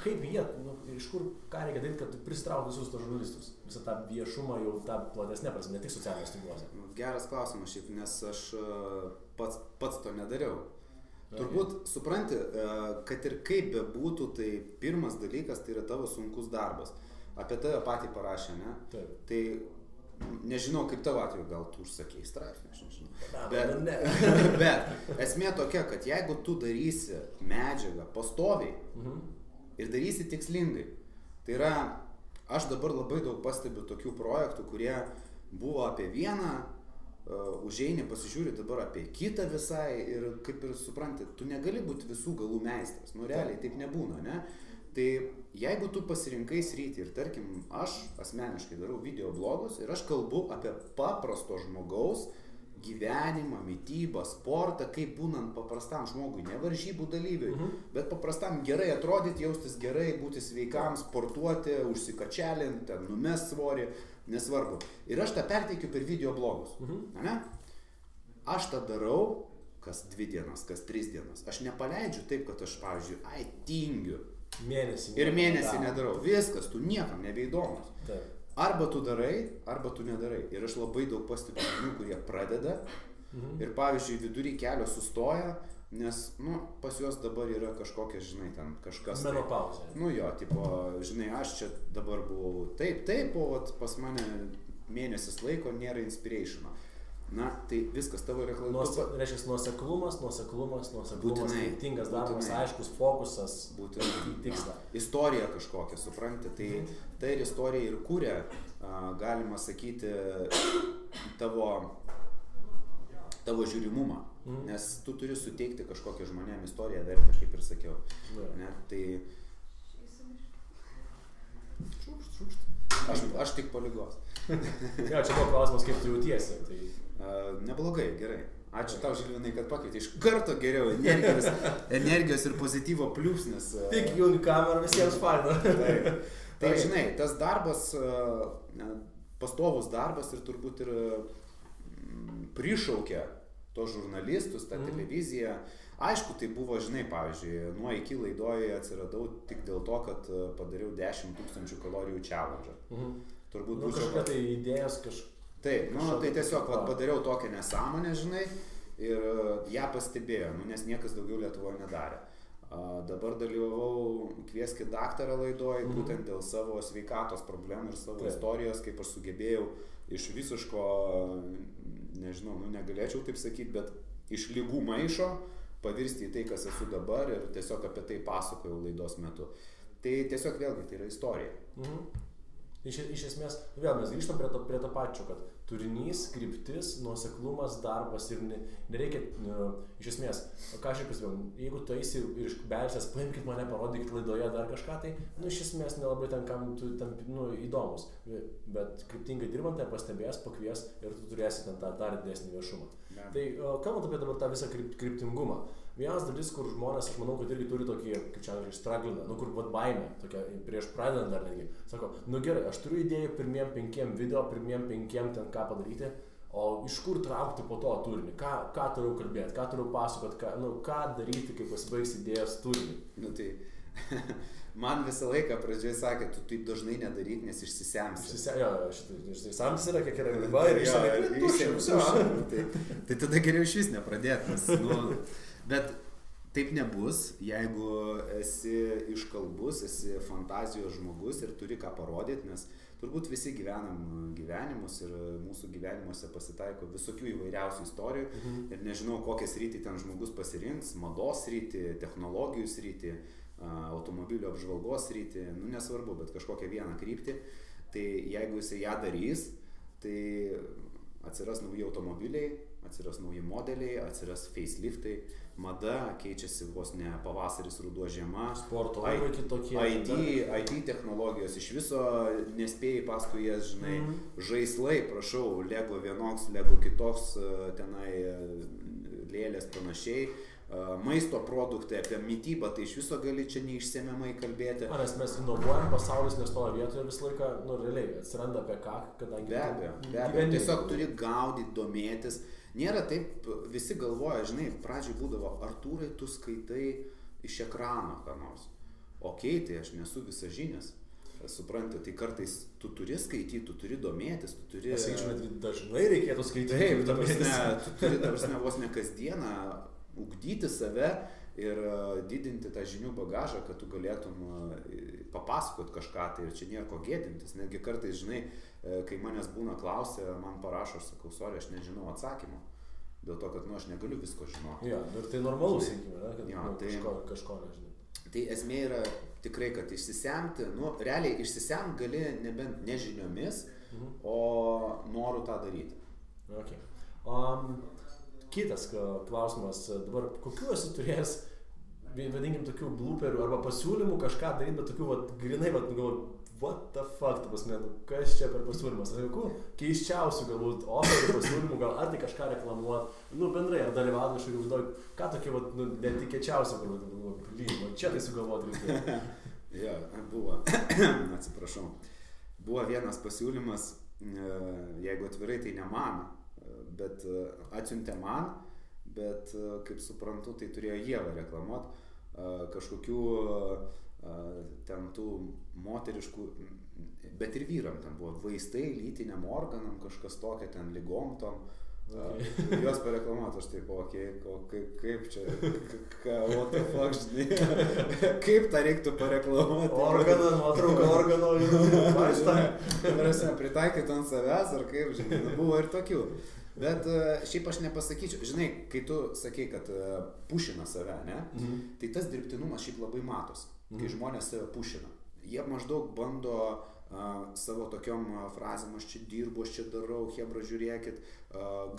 kaip jie, nu, iš kur, ką reikia daryti, kad tu pristrauki visus tos žurnalistus, visą tą viešumą jau tą platesnę prasme, ne tik socialiniuose tinkluose. Geras klausimas šiaip, nes aš pats to nedariau. Turbūt supranti, kad ir kaip bebūtų, tai pirmas dalykas tai yra tavo sunkus darbas. Apie tave patį parašė, ne? Taip. Tai nežinau, kaip tavo atveju, gal tu užsakei straipsnį, aš nežinau. Bet esmė tokia, kad jeigu tu darysi medžiagą pastoviai ir darysi tikslingai, tai yra, aš dabar labai daug pastebiu tokių projektų, kurie buvo apie vieną, užeini, pasižiūri dabar apie kitą visai ir kaip ir supranti, tu negali būti visų galų meistras, nu realiai taip nebūna, ne? Tai jeigu tu pasirinkai sritį ir tarkim, aš asmeniškai darau video blogus ir aš kalbu apie paprasto žmogaus gyvenimą, mitybą, sportą, kaip būnant paprastam žmogui, ne varžybų dalyviui, bet paprastam gerai atrodyti, jaustis gerai, būti sveikam, sportuoti, užsikačialinti, ten numest svorį, nesvarbu. Ir aš tą perteikiu per video blogus. Ne? Aš tą darau kas 2 dienas, kas 3 dienas. Aš nepaleidžiu taip, kad aš, pavyzdžiui, tingiu. Mėnesį nedarau. Viskas, tu niekam nebeįdomus. Taip. Arba tu darai, arba tu nedarai. Ir aš labai daug pastebiu žmonių, kurie pradeda ir, pavyzdžiui, vidury kelio sustoja, nes, nu, pas juos dabar yra kažkokia, žinai, ten kažkas... Menopauzė. Nu jo, tipo, žinai, aš čia dabar buvau taip, o pas mane mėnesis laiko nėra inspirationo. Na, tai viskas tavo reklama. Reiškia, nuoseklumas, būtinai, kryptingas darbas, aiškus fokusas, tiksla. Istorija kažkokia, supranti, tai ir istorija ir kūrė, galima sakyti, tavo žiūrimumą, nes tu turi suteikti kažkokią žmonėm istoriją vertę, kaip ir sakiau. Ne, tai... Aš tik po ligos. Ja, čia buvo klausimas, kaip tu jautiesi. Tai... Neblogai, gerai. Ačiū tau, Žilvinai, kad pakvietei. Iš karto geriau energijos ir pozityvo pliūpsnis. Tik jungi kamerą, visiems faina. Tai žinai, tas darbas, pastovus darbas ir turbūt ir prišaukia tos žurnalistus, tą televiziją. Aišku, tai buvo, žinai, pavyzdžiui, nuo iki laidoje atsiradau tik dėl to, kad padariau 10 000 kalorijų challenge. Turbūt būčiau... Kažkokia tai idėjas kažkokia. Taip, tai tiesiog padariau tokią nesąmonę, žinai, ir ją pastebėjo, nes niekas daugiau Lietuvoje nedarė. Dabar dalyvavau Kvieskit daktarą laidoje, būtent dėl savo sveikatos problemų ir savo istorijos, kaip aš sugebėjau iš visiško, nežinau, negalėčiau taip sakyti, bet iš ligų maišo pavirsti į tai, kas esu dabar ir tiesiog apie tai pasakojau laidos metu. Tai tiesiog vėlgi tai yra istorija. Iš esmės, vėl mes grįžtam prie to pačio, kad turinys, kryptis, nuoseklumas, darbas ir nereikia, iš esmės, ką aš ir pasivėjau, jeigu tu eisi ir iš belsės, paimkit mane, parodykit laidoje dar kažką, tai, iš esmės nelabai ten kam tu įdomus, bet kryptingai dirbant, tai pastebės, pakvies ir tu turėsi ten tą dar didesnį viešumą. Tai kalbant apie dabar tą visą kryptingumą, vienas dalis, kur žmonės, aš manau, kad irgi turi tokį, kaip čia strugglinę, kur baimė, tokia prieš pradedant dar netgi, sako, gerai, aš turiu idėjų pirmiem 5 video, pirmiem 5 ten ką padaryti, o iš kur traukti po to turinį, ką turiu kalbėti, ką turiu pasakoti, ką daryti, kai pasibaigs idėjos turinį. Tai Man visą laiką pradžioje sakė, tu taip dažnai nedaryk, nes išsisemsi. Išsisemtis yra, kiek yra riba ir išsisemsi. Tai tada geriau iš vis nepradėti. Bet taip nebus, jeigu esi iškalbus, esi fantazijos žmogus ir turi ką parodyti, nes turbūt visi gyvenam gyvenimus ir mūsų gyvenimuose pasitaiko visokių įvairiausių istorijų ir nežinau, kokią sritį ten žmogus pasirinks, mados sritį, technologijų sritį, automobilio apžvalgos sritį, nesvarbu, bet kažkokią vieną kryptį, tai jeigu jisai ją darys, tai atsiras nauji automobiliai, atsiras nauji modeliai, atsiras faceliftai, mada keičiasi vos ne pavasaris, ruduo, žiema, sporto laivai kitokie, IT technologijos, iš viso nespėjai paskui jas, žinai, žaislai, prašau, Lego vienoks, Lego kitoks, tenai lėlės panašiai, maisto produktai, apie mitybą, tai iš viso gali čia neišsemiamai kalbėti. Nes mes inovuojam, pasaulis nestoja vietoje visą laiką, realiai atsiranda apie ką, kadangi... Be abejo, tiesiog turi gaudyti, domėtis. Nėra taip, visi galvoja, žinai, pradžiai būdavo, Artūrai, tu skaitai iš ekrano ką nors. Okei, tai aš nesu visažinis. Supranti, tai kartais tu turi skaityti, tu turi domėtis, tu turi... Dažnai reikėtų skaityti. Taip, tu turi, vos ne kasdieną ugdyti save ir didinti tą žinių bagažą, kad tu galėtum papasakot kažką, tai ir čia nėra ko gėdintis. Netgi kartais, žinai, kai manęs būna klausia, man parašo, aš sakau, sorry, aš nežinau atsakymo. Dėl to, kad aš negaliu visko žinoti. Ja, ir tai normalu, sakykime, kad kažko nežinai. Tai esmė yra tikrai, kad išsisemti, realiai išsisemti gali nebent nežiniomis, o noru tą daryti. Okay. Kitas klausimas, dabar kokiu esi turėjęs, vadinkim, tokių blooperių arba pasiūlymų kažką daryti, bet tokių, grinai, what the fuck, kas čia per pasiūlymas, keiščiausių galbūt oferių pasiūlymų, gal ar tai kažką reklamuot, bendrai, ar dalyvauti kažkokį užduoti, ką tokie, netikėčiausia, čia tai sugalvoti reikia. Jo, buvo, atsiprašau, buvo vienas pasiūlymas, jeigu atvirai, tai ne man, bet atsiuntė man, bet kaip suprantu, tai turėjo Ieva reklamuot kažkokių ten tų moteriškų, bet ir vyram ten buvo vaistai lytiniam organam, kažkas tokia ten ligom tom, juos pareklamuot, aš taip, kaip čia, what the fuck, žinai, kaip tą reiktų pareklamuoti. Organą, nuotrauką organo, vaistą. Pritaikyti ant savęs, ar kaip, žinai, buvo ir tokių. Bet šiaip aš nepasakyčiau, žinai, kai tu sakei, kad pušina save, ne? Tai tas dirbtinumas šiaip labai matos, kai žmonės save pušina. Jie maždaug bando savo tokiom frazėm, aš čia dirbu, aš čia darau, hebra žiūrėkit,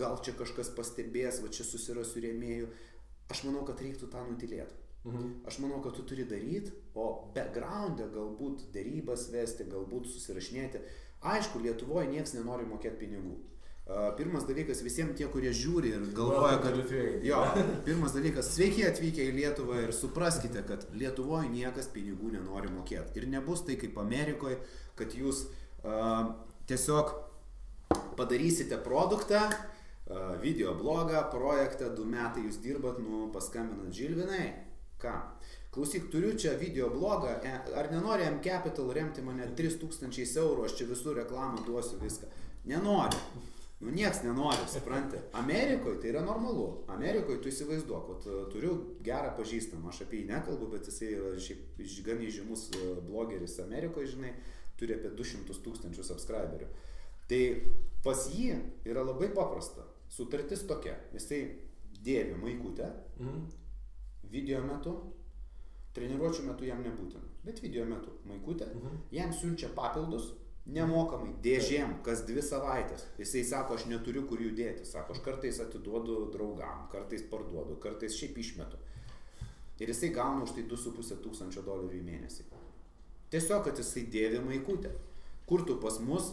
gal čia kažkas pastebės, va čia susirasiu rėmėjų. Aš manau, kad reiktų tą nutilėti. Aš manau, kad tu turi daryti, o background'e galbūt derybas vesti, galbūt susirašinėti. Aišku, Lietuvoje nieks nenori mokėti pinigų. Pirmas dalykas, visiems tie, kurie žiūri ir galvoja, kad... Jo, pirmas dalykas, sveiki atvykę į Lietuvą ir supraskite, kad Lietuvoje niekas pinigų nenori mokėti. Ir nebus tai kaip Amerikoje, kad jūs tiesiog padarysite produktą, video blogą, projektą, 2 metai jūs dirbat, paskambinat Žilvinai. Ką? Klausyk, turiu čia video blogą, ar nenori M-Capital remti mane 3000 eurų, aš čia visų reklamą duosiu viską. Nenori. Nieks nenori, supranti. Amerikoje tai yra normalu. Amerikoje tu įsivaizduok, turiu gerą pažįstamą, aš apie jį nekalbu, bet jisai yra šiaip gan įžymus blogeris Amerikoje, žinai, turi apie 200 000 subscriberių. Tai pas jį yra labai paprasta. Sutartis tokia. Jisai dėvi maikutę, video metu, treniruočių metu jam nebūtina, bet video metu maikutę, jam siunčia papildus, nemokamai, dėžėm, kas 2 savaitės. Jisai sako, aš neturiu kur jų dėti. Sako, aš kartais atiduodu draugam, kartais parduodu, kartais šiaip išmetu. Ir jisai gauna už tai $2,500 į mėnesį. Tiesiog, kad jisai dėvi maikutę. Kur tu pas mus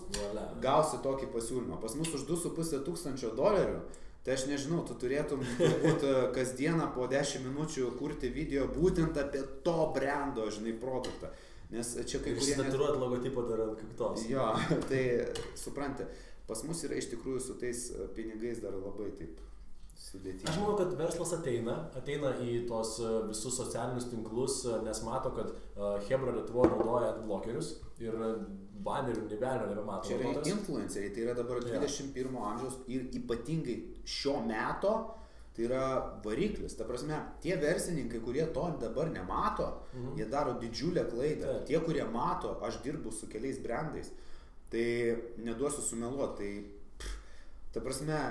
gausi tokį pasiūlymą? Pas mus už $2,500, tai aš nežinau, tu turėtum turbūt kasdieną po 10 minučių kurti video būtent apie to brando, žinai, produktą. Nes čia kai kurie... Išsitaturuot logotipą dar ant kaktos. Jo, tai supranti, pas mus yra iš tikrųjų su tais pinigais dar labai taip sudėtinga. Aš manau, kad verslas ateina į tos visus socialinius tinklus, nes mato, kad Hebra Lietuvoje naudoja adblockerius ir banerių nebelio nebemato. Čia yra influenceriai, tai yra dabar 21 amžiaus ir ypatingai šio meto, tai yra variklis. Ta prasme, tie verslininkai, kurie to dabar nemato, jie daro didžiulę klaidą. Tie, kurie mato, aš dirbu su keliais brandais, tai neduosiu sumeluoti. Ta prasme,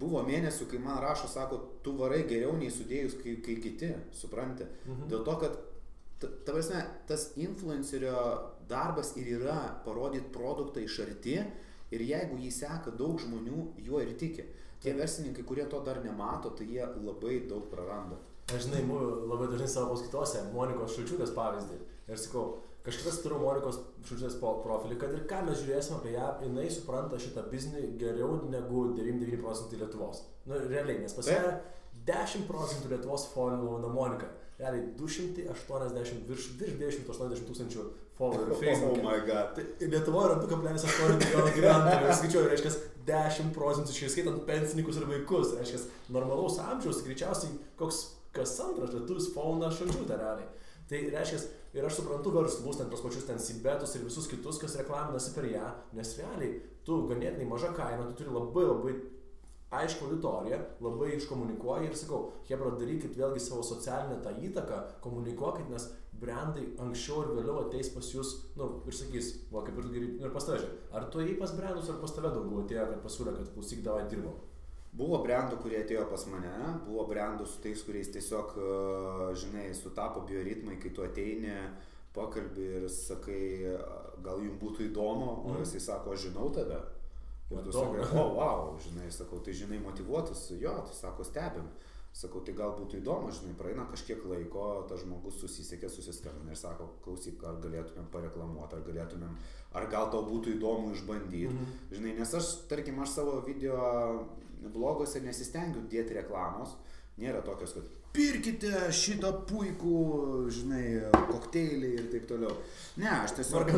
buvo mėnesių, kai man rašo, sako, tu varai geriau nei sudėjus, kai kiti, supranti. Dėl to, kad ta prasme, tas influencerio darbas ir yra parodyti produktą iš arti ir jeigu jį seka daug žmonių, juo ir tiki. Tie verslininkai, kurie to dar nemato, tai jie labai daug praranda. Aš žinai, labai dažnai savo paskaitose Monikos Šulčiūtės pavyzdį. Ir sakau, kažkas turiu Monikos Šulčiūtės profilį, kad ir ką mes žiūrėsime apie ją, jinai supranta šitą biznį geriau negu 99% Lietuvos. Nu, realiai, nes pas ją 10% Lietuvos followina Monika. Realiai 280, virš 280 tūkstančių followerių Facebook'e. Oh my god. Tai Lietuvoje yra 2,8 milijono gyventojų. Skaičiuoju, reiškia 10%, išskaitant pensininkus ir vaikus. Reiškia, normalaus amžiaus greičiausiai kas antras lietuvis followina Šulčiūtę realiai. Tai reiškia, ir aš suprantu verslus, tos pačius Sibetus ir visus kitus, kas reklaminasi per ją, nes realiai tu ganėtinai maža kaina, tu turi labai aišku auditoriją, labai iškomunikuoji ir sakau, Hebra, darykit vėlgi savo socialinę tą įtaką, komunikuokit, nes brandai anksčiau ir vėliau ateis pas jūs, ir sakys, va, kaip ir tu geri, ir pas tave, ar tu ėjai pas brandus, ar pas tave daugiau atėjo, kad pasiūlė, kad klausyk, davai dirbom? Buvo brandų, kurie atėjo pas mane, buvo brandų su tais, kuriais tiesiog, žinai, sutapo bioritmai, kai tu ateini, pakalbi ir sakai, gal jums būtų įdomu, o jisai sako, aš žinau tave. Ir tu sakai, wow, žinai, sakau, tai žinai motyvuotus, jo, tai sako, stebim. Sakau, tai gal būtų įdomu, žinai, praeina kažkiek laiko, tas žmogus susisiekė, susiskambina ir sako, klausyk, ar galėtumėm pareklamuoti, ar gal tau būtų įdomu išbandyti. Žinai, nes aš, tarkim, aš savo video bloguose nesistengiu dėti reklamos, nėra tokios, kad pirkite šitą puikų, žinai, kokteilį ir taip toliau. Ne, aš tiesiog...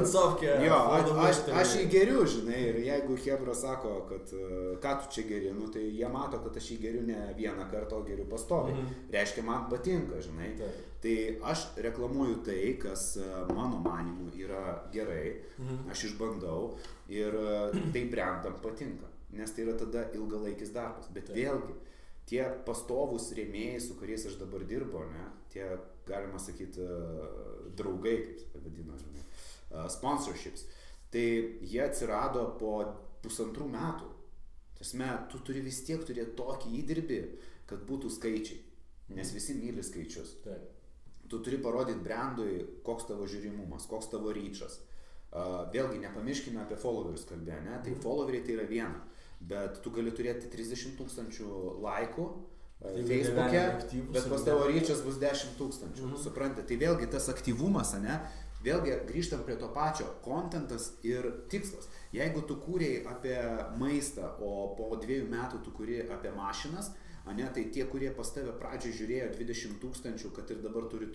Aš jį geriu, žinai, ir jeigu Hebra sako, kad ką tu čia geri, tai jie mato, kad aš jį geriu ne vieną kartą, o geriu pastoviai. Reiškia, man patinka, žinai. Tai aš reklamuoju tai, kas mano manimu yra gerai, aš išbandau ir tai brandam patinka, nes tai yra tada ilgalaikis darbas. Bet vėlgi, tie pastovūs rėmėjai, su kuriais aš dabar dirbu, ne, tie, galima sakyti, draugai, kaip vadino, sponsorships, tai jie atsirado po 1,5 metų. Tasme, tu turi vis tiek turėti tokį įdirbį, kad būtų skaičiai, nes visi myli skaičius. Tu turi parodyti brandui, koks tavo žiūrimumas, koks tavo ryčas. Vėlgi, nepamirškime apie followerius kalbė, ne, tai followeriai tai yra viena. Bet tu gali turėti 30 000 laikų Facebook'e, bet pas tavo ryčias bus 10 000. Suprantate, tai vėlgi tas aktyvumas, ne? Vėlgi grįžtam prie to pačio, kontentas ir tikslas. Jeigu tu kūrėjai apie maistą, o po 2 metų tu kūrėjai apie mašinas, ne, tai tie, kurie pas tave pradžioj žiūrėjo 20 000, kad ir dabar turi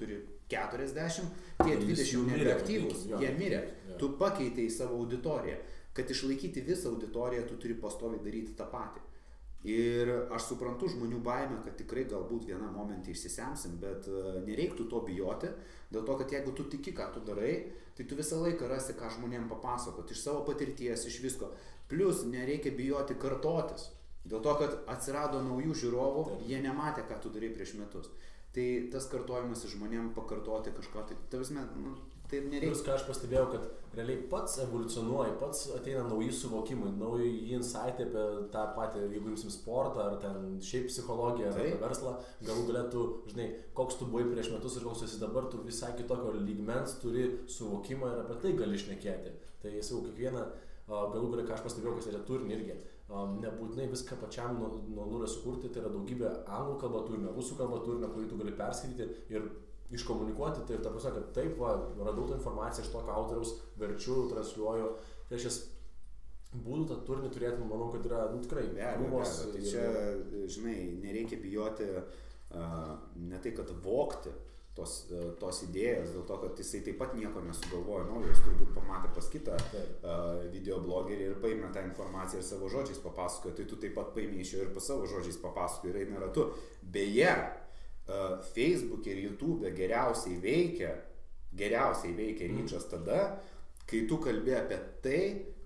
40, tie 20 nebeaktyvus, jie mirė. Tu pakeitei savo auditoriją. Kad išlaikyti visą auditoriją, tu turi pastoviai daryti tą patį. Ir aš suprantu žmonių baimę, kad tikrai galbūt vieną momentą išsisemsim, bet nereiktų to bijoti, dėl to, kad jeigu tu tiki, ką tu darai, tai tu visą laiką rasi, ką žmonėm papasakoti, iš savo patirties, iš visko. Plus nereikia bijoti kartotis, dėl to, kad atsirado naujų žiūrovų, jie nematė, ką tu darai prieš metus. Tai tas kartojimas žmonėm pakartoti kažko, tai nereikia. Plius, ką aš pastebėjau, kad realiai pats evoliucionuoja, pats ateina nauji suvokimai, nauji insightai apie tą patį, jeigu imsim sportą, ar ten šiaip psichologiją, ar apie verslą, galų galėtų, žinai, koks tu buvai prieš metus ir koks esi dabar, tu visai kitokio lygmens turi suvokimą ir apie tai gali šnekėti. Tai jau kiekvieną, galų galę, ką aš pastebėjau, kas yra turinį irgi, nebūtinai viską pačiam nuo nulio sukurti, tai yra daugybė anglų kalba turinio, rusų kalba turinio, kurį tu gali perskaityti ir iškomunikuoti, tai ir ta prasme, kad taip, radau tą informaciją iš tokio autoriaus, verčiu, transliuoju, tai aš būdų tą turinį turėti, manau, kad yra, tikrai, krūvos. Tai čia, žinai, nereikia bijoti ne tai, kad vogti, tos idėjos, dėl to, kad jisai taip pat nieko nesugalvojo naujo, jis turbūt pamatė pas kitą videoblogerį ir paėmė tą informaciją ir savo žodžiais papasakojo, tai tu taip pat paėmė iš jo ir pas savo žodžiais papasakojo ir eina ratu. Beje, Facebook ir YouTube geriausiai veikia ryčas tada, kai tu kalbė apie tai,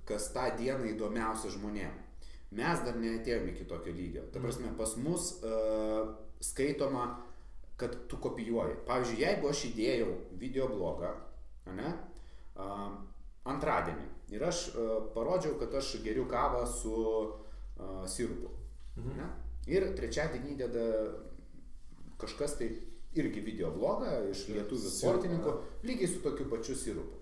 kas tą dieną įdomiausia žmonėm. Mes dar neatėjome iki tokio lygio. Ta prasme, pas mus skaitoma, kad tu kopijuoji. Pavyzdžiui, jeigu aš įdėjau videoblogą, antradienį ir aš parodžiau, kad aš geriu kavą su sirupu. Ir trečiadienį įdeda kažkas tai irgi videoblogą iš lietuvių sportininkų, lygiai su tokiu pačiu sirupu.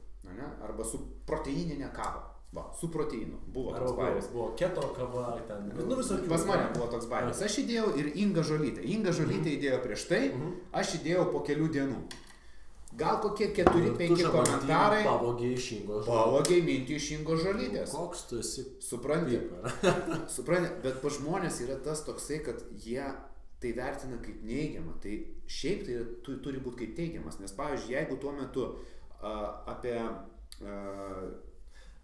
Arba su proteininė kava. Va, su proteinu. Buvo toks bairis. Buvo keto kava, ten. Pas mane buvo toks bairis. Aš įdėjau ir Inga Žolytė. Inga Žolytė įdėjo prieš tai, aš įdėjau po kelių dienų. Gal kokie 4-5 komentarai. Pavogiai mintį iš Ingo Žolytės. Koks tu esi? Supranti, bet pa žmonės yra tas toksai, kad jie tai vertina kaip neigiamą. Tai šiaip tai turi būti kaip teigiamas. Nes pavyzdžiui, jeigu tuo metu apie...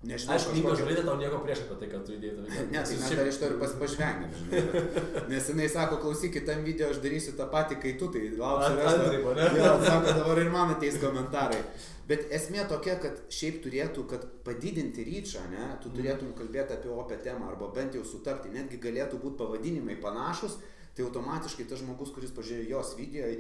Nežinau, aš Inga Žolytė tau nieko prieš apie tai, kad tu įdėjai tą video. Ne, tai mes dar iš to ir pažvengėm. Nes jinai sako, klausykit, tam video aš darysiu tą patį, kai tu, tai lauksiu resto. Jo, sako, dabar ir man ateis komentarai. Bet esmė tokia, kad šiaip turėtų, kad padidinti ryčą, tu turėtum kalbėti apie opę temą arba bent jau sutapti. Netgi galėtų būti pavadinimai panašus, tai automatiškai tas žmogus, kuris pažiūrėjo jos video,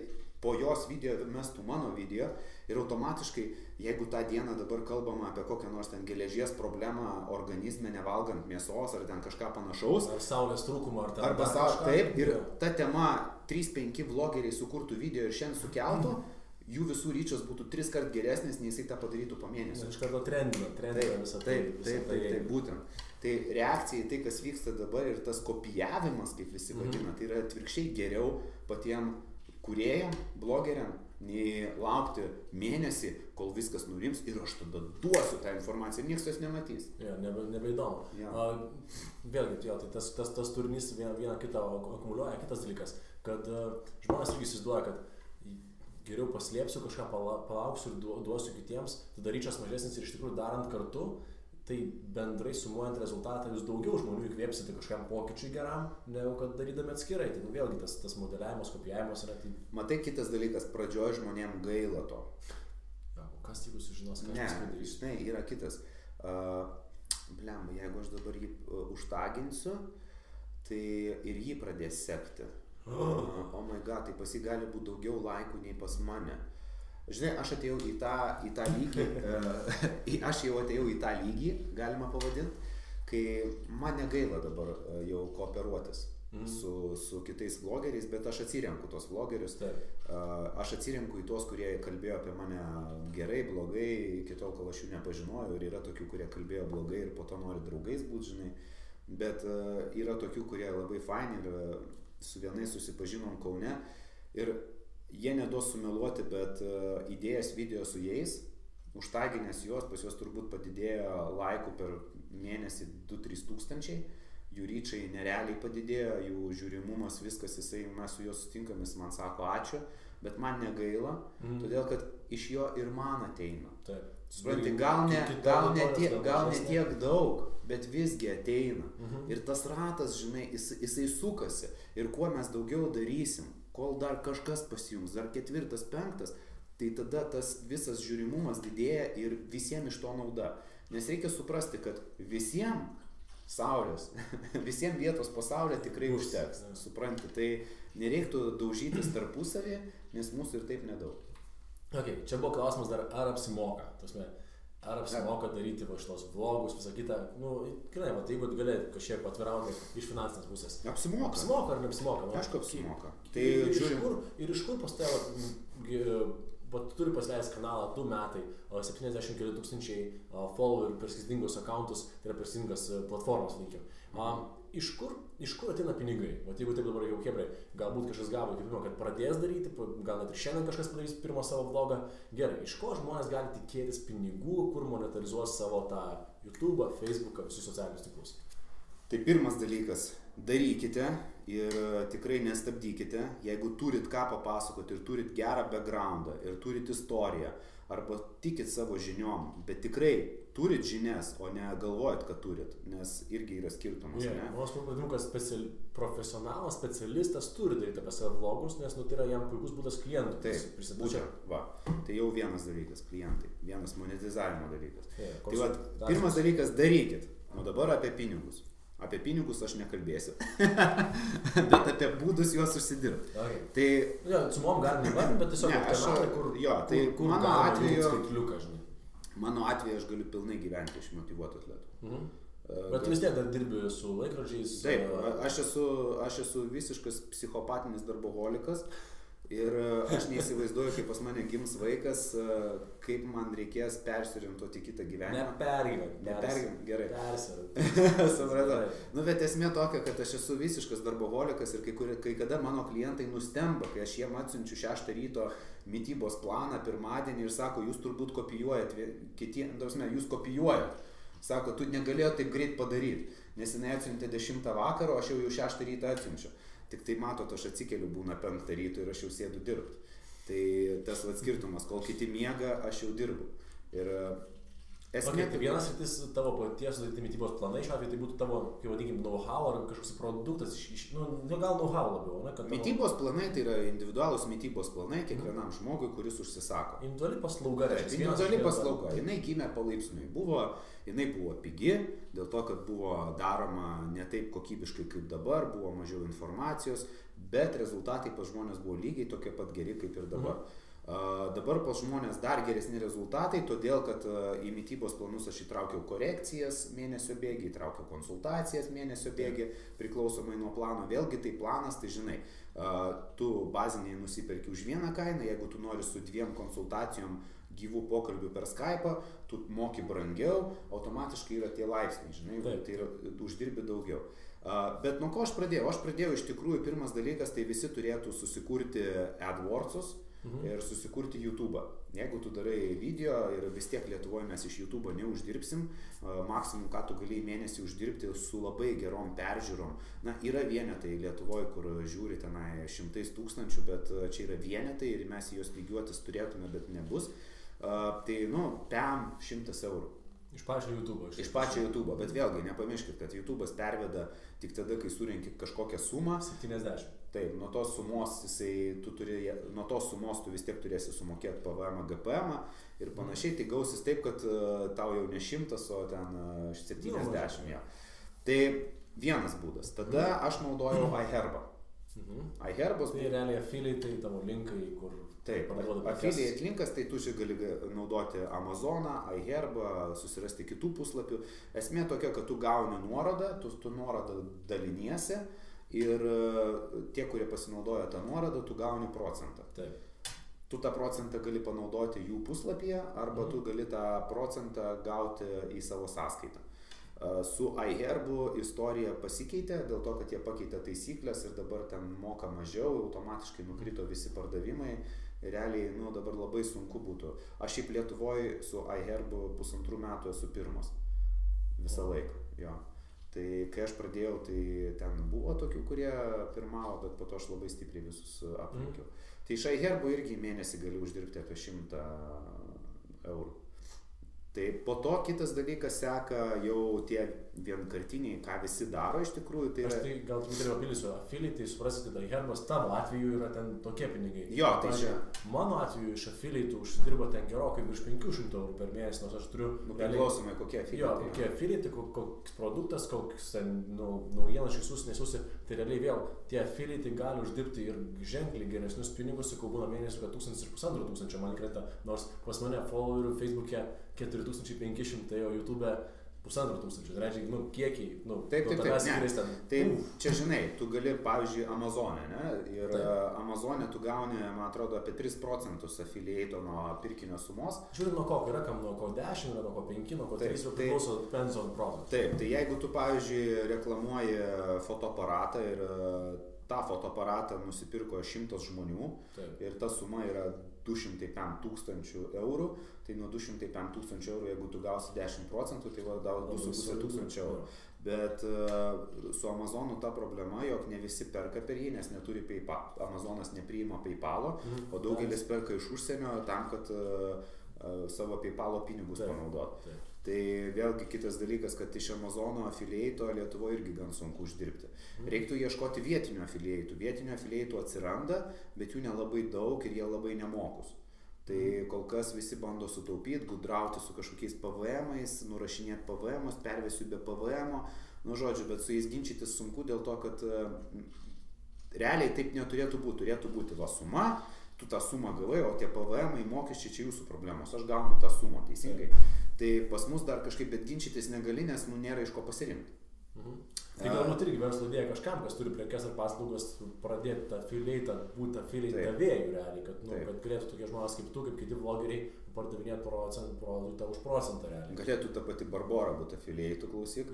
po jos video mestų mano video ir automatiškai, jeigu tą dieną dabar kalbama apie kokią nors ten geležies problemą organizme, nevalgant mėsos ar ten kažką panašaus. Ar saulės trūkumą, ar ten arba kažką. Taip, ir ta tema 3-5 vlogeriai sukurtų video ir šiandien sukeltų, jų visų ryčios būtų 3 kart geresnis, nei jisai tą padarytų po mėnesio. Iš karto trendina visą tai. Taip, būtent. Tai reakcija į tai, kas vyksta dabar ir tas kopijavimas, kaip visi vadina, tai yra atvirkščiai geriau patiem kūrėjam, blogeriam, nei laukti mėnesį, kol viskas nurims ir aš tada duosiu tą informaciją ir niekas jos nematys. Nebeįdomu. Vėlgi, tai tas turinys vieną kitą akumuliuoja. Kitas dalykas, kad žmonės irgi įsivaizduoja, kad geriau paslėpsiu, kažką palauksiu ir duosiu kitiems, tada ryčas mažesnis ir iš tikrųjų darant kartu, tai bendrai sumuojant rezultatą jūs daugiau žmonių įkvėpsite kažkam pokyčiui geram, negu kad darydami atskirai. Tai vėlgi tas modeliavimas, kopijavimas yra tai... Matai, kitas dalykas, pradžioj žmonėm gaila to. O kas jeigu sužinos, ką aš padarys? Ne, yra kitas. Jeigu aš dabar jį užtaginsiu, tai ir jį pradės sekti. Oh my god, tai pas jį gali būti daugiau laikų nei pas mane. Žinai, aš atėjau į tą lygį, galima pavadinti, kai man negaila dabar jau kooperuotis su kitais vlogeriais, bet aš atsirenku tos vlogerius, aš atsirenku į tos, kurie kalbėjo apie mane gerai, blogai, iki tol, kol aš jų nepažinojau, ir yra tokių, kurie kalbėjo blogai ir po to nori draugais būti, žinai, bet yra tokių, kurie labai faini ir su vienais susipažinom Kaune ir jie neduos sumeluoti, bet įdėjęs video su jais, užtaginęs juos, pas juos turbūt padidėjo laikų per mėnesį 2-3 tūkstančiai, jų ryčiai nerealiai padidėjo, jų žiūrimumas, viskas, mes su juos sutinkam, jis man sako ačiū, bet man negaila, todėl kad iš jo ir man ateina. Supranti, gal ne tiek daug, bet visgi ateina. Ir tas ratas, žinai, jisai sukasi. Ir kuo mes daugiau darysim, kol dar kažkas pasijungs, dar 4-5, tai tada tas visas žiūrimumas didėja ir visiems iš to nauda. Nes reikia suprasti, kad visiems saulės, visiems vietos po saulę tikrai užteks. Supranti, tai nereiktų daužytis tarpusavį, nes mūsų ir taip nedaug. Okay, čia buvo klausimas dar, ar apsimoka. Ar apsimoka daryti šitos vlogus, visą kitą. Gerai, jeigu galėt kažkiek atvirauti iš finansinės pusės. Apsimoka. Apsimoka ar neapsimoka? Aišku, apsimoka. Ir iš kur pas tave, tu turi pasileist kanalą 2 metai, 70 keli tūkstančiai followerių per skirtingus accountus, tai yra per skirtingas platformas, vadinkim. Iš kur ateina pinigai? Jeigu taip dabar jau hebrai, galbūt kažkas gavo įkvėpimą, kad pradės daryti, gal net ir šiandien kažkas padarys pirmą savo vlogą. Gerai, iš ko žmonės gali tikėtis pinigų, kur monetarizuos savo tą YouTube'ą, Facebook'ą, visus socialinius tinklus? Tai pirmas dalykas, darykite ir tikrai nestabdykite, jeigu turit ką papasakoti ir turit gerą backgroundą ir turit istoriją arba tikit savo žiniom, bet tikrai turit žinias, o ne galvojat, kad turit, nes irgi yra skirtumas. Aš manau, kad profesionalas, specialistas turi daryti apie savo vlogus, nes tai yra jam puikus būdas klientų. Taip, būtent, va. Tai jau vienas dalykas, klientai, vienas monetizavimo dalykas. Tai va, pirmas dalykas, darykit. O dabar apie pinigus. Apie pinigus aš nekalbėsiu, bet apie būdus juos užsidirbti. Okay. Tai... Ja, sumom galim įvardinti, bet tiesiog kanalai, kur mano atveju, skaitliuką, žinai. Mano atveju aš galiu pilnai gyventi iš motyvuotų atletų. Bet tu vis tiek dar dirbi su laikrodžiais. Taip, aš esu visiškas psichopatinis darboholikas. Ir aš neįsivaizduoju, kaip pas mane gims vaikas, kaip man reikės persiorientuoti kitą gyvenimą. Nepergyvent, gerai. Supratau. Bet esmė tokia, kad aš esu visiškas darboholikas ir kai kada mano klientai nustemba, kai aš jiem atsiunčiu 6 ryto mitybos planą pirmadienį ir sako, jūs turbūt kopijuojat, jūs kopijuojat. Sako, tu negalėjai taip greit padaryti, nes jinai atsiuntė 10 vakaro, aš jau 6 ryto atsiunčiu. Tik tai matot, aš atsikeliu būna 5 ryto ir aš jau sėdu dirbti. Tai tas skirtumas, kol kiti miega, aš jau dirbu. Ir esmė... Tai vienas rytis tavo paties mitybos planai, šiuo atveju tai būtų tavo, kaip vadinkim, know-how ar kažkoks produktas, gal know-how labiau, ne? Mitybos planai tai yra individualūs mitybos planai kiekvienam žmogui, kuris užsisako. Individuali paslauga. Individuali paslauga. Jinai gimė palaipsniui. Jinai buvo pigi, dėl to, kad buvo daroma ne taip kokybiškai kaip dabar, buvo mažiau informacijos, bet rezultatai pas žmonės buvo lygiai tokie pat geri kaip ir dabar. Dabar pas žmonės dar geresni rezultatai, todėl, kad į mitybos planus aš įtraukiau korekcijas mėnesio bėgį, įtraukiau konsultacijas mėnesio bėgį, priklausomai nuo plano. Vėlgi tai planas, tai žinai, tu baziniai nusiperki už vieną kainą, jeigu tu nori su 2 konsultacijom gyvų pokalbių per Skype'ą, tu moki brangiau, automatiškai yra tie laipsniai, žinai, tai yra, uždirbi daugiau. Bet nuo ko aš pradėjau? Aš pradėjau iš tikrųjų, pirmas dalykas, tai visi turėtų susikurti AdWords'us ir susikurti YouTube'ą. Jeigu tu darai video ir vis tiek Lietuvoje mes iš YouTube'o neuždirbsim, maksimum, ką tu gali į mėnesį uždirbti su labai gerom peržiūrom. Na, yra vienetai Lietuvoje, kur žiūri tenai 100 000, bet čia yra vienetai ir mes juos lygiuotis turėtume, bet nebus. Tai, PM 100 eurų. Iš pačio YouTube'o. Iš pačio YouTube'o, bet vėlgi nepamirškit, kad YouTube'as perveda tik tada, kai surenki kažkokią sumą. 70. Taip, nuo tos sumos tu vis tiek turėsi sumokėti PVM, GPM ir panašiai, tai gausis taip, kad tau jau ne 100, o ten 70. Ja. Tai vienas būdas. Tada aš naudojau iHerbą. iHerbos... Tai realiai affiliate, tavo linkai, kur... Taip, affiliate linkas, tai tu čia gali naudoti Amazoną, iHerbą, susirasti kitų puslapių. Esmė tokia, kad tu gauni nuorodą, tu nuorodą daliniesi ir tie, kurie pasinaudoja tą nuorodą, tu gauni procentą. Taip. Tu tą procentą gali panaudoti jų puslapyje arba tu gali tą procentą gauti į savo sąskaitą. Su iHerbu istorija pasikeitė dėl to, kad jie pakeitė taisyklės ir dabar ten moka mažiau, automatiškai nukrito visi pardavimai. Realiai, dabar labai sunku būtų. Aš šiaip Lietuvoje su iHerbu 1,5 metų esu pirmas. Visą laiką, jo. Tai kai aš pradėjau, tai ten buvo tokių, kurie pirmavo, bet po to aš labai stipriai visus aplenkiau. Tai iš iHerbu irgi mėnesį gali uždirbti apie 100 eurų. Tai po to kitas dalykas seka jau tie vienkartiniai, ką visi daro iš tikrųjų. Tai aš tai gal truputėlį papildysiu, affiliate, tai suprasite, tai iHerbas tavo atveju yra ten tokie pinigai. Jo, tai čia. Mano atveju iš affiliate užsidirba ten gerokai virš 500 eurų per mėnesį, nors aš turiu... Priklausomai kokie affiliate. Jo, kokie affiliate, koks produktas, koks ten naujienas išsiųs, nesiųsi, tai realiai vėl tie affiliate gali uždirbti ir ženkliai geresnius pinigus, kai būna mėnesį, kad 1500 man krenta, nors pas mane followerių Facebook'e 4500, o YouTube'e 1500, tai reiškia, kiekiai, taip, tai čia žinai, tu gali, pavyzdžiui, Amazon'e, ne, ir Amazon'e tu gauni, man atrodo, apie 3% affiliate nuo pirkinio sumos. Žiūrint nuo ko, yra kam nuo ko 10, yra nuo ko 5, nuo ko 3, priklauso depends on product. Taip, tai jeigu tu, pavyzdžiui, reklamuoji fotoaparatą ir tą fotoaparatą nusipirko 100 žmonių ir ta suma yra 205 tūkstančių eurų, tai nuo 205 tūkstančių eurų, jeigu tu gausi 10%, tai va, 2,5 tūkstančių eurų. Bet su Amazonu ta problema, jog ne visi perka per jį, nes neturi PayPal. Amazonas nepriima PayPalo, o daugelis perka iš užsienio tam, kad savo PayPalo pinigus panaudotų. Tai vėlgi kitas dalykas, kad iš Amazono afiliato Lietuvoje irgi gan sunku uždirbti. Reiktų ieškoti vietinių afiliatų. Vietinių afiliatų atsiranda, bet jų nelabai daug ir jie labai nemokus. Tai kol kas visi bando sutaupyti, gudrauti su kažkokiais PVM-ais, nurašinėti PVM-us, pervesiu be PVM-o. Nu, žodžiu, bet su jais ginčytis sunku dėl to, kad realiai taip neturėtų būti. Turėtų būti va suma, tu tą sumą gavai, o tie PVM-ai mokesčiai čia jūsų problemos. Aš gaunu tą sumą, teisingai. Tai pas mus dar kažkaip bet ginčytis negali, nes nėra iš ko pasirinkti. Tai galbūt irgi verslo idėja kažkam, kas turi prekes ar paslaugas, pradėti tą affiliate, būti affiliate davėjų realiai, kad galėtų tokie žmonės kaip tu, kaip kiti vlogeriai, pardavinėti produktą už procentą realiai. Galėtų ta pati Barbora būti affiliate, klausyk.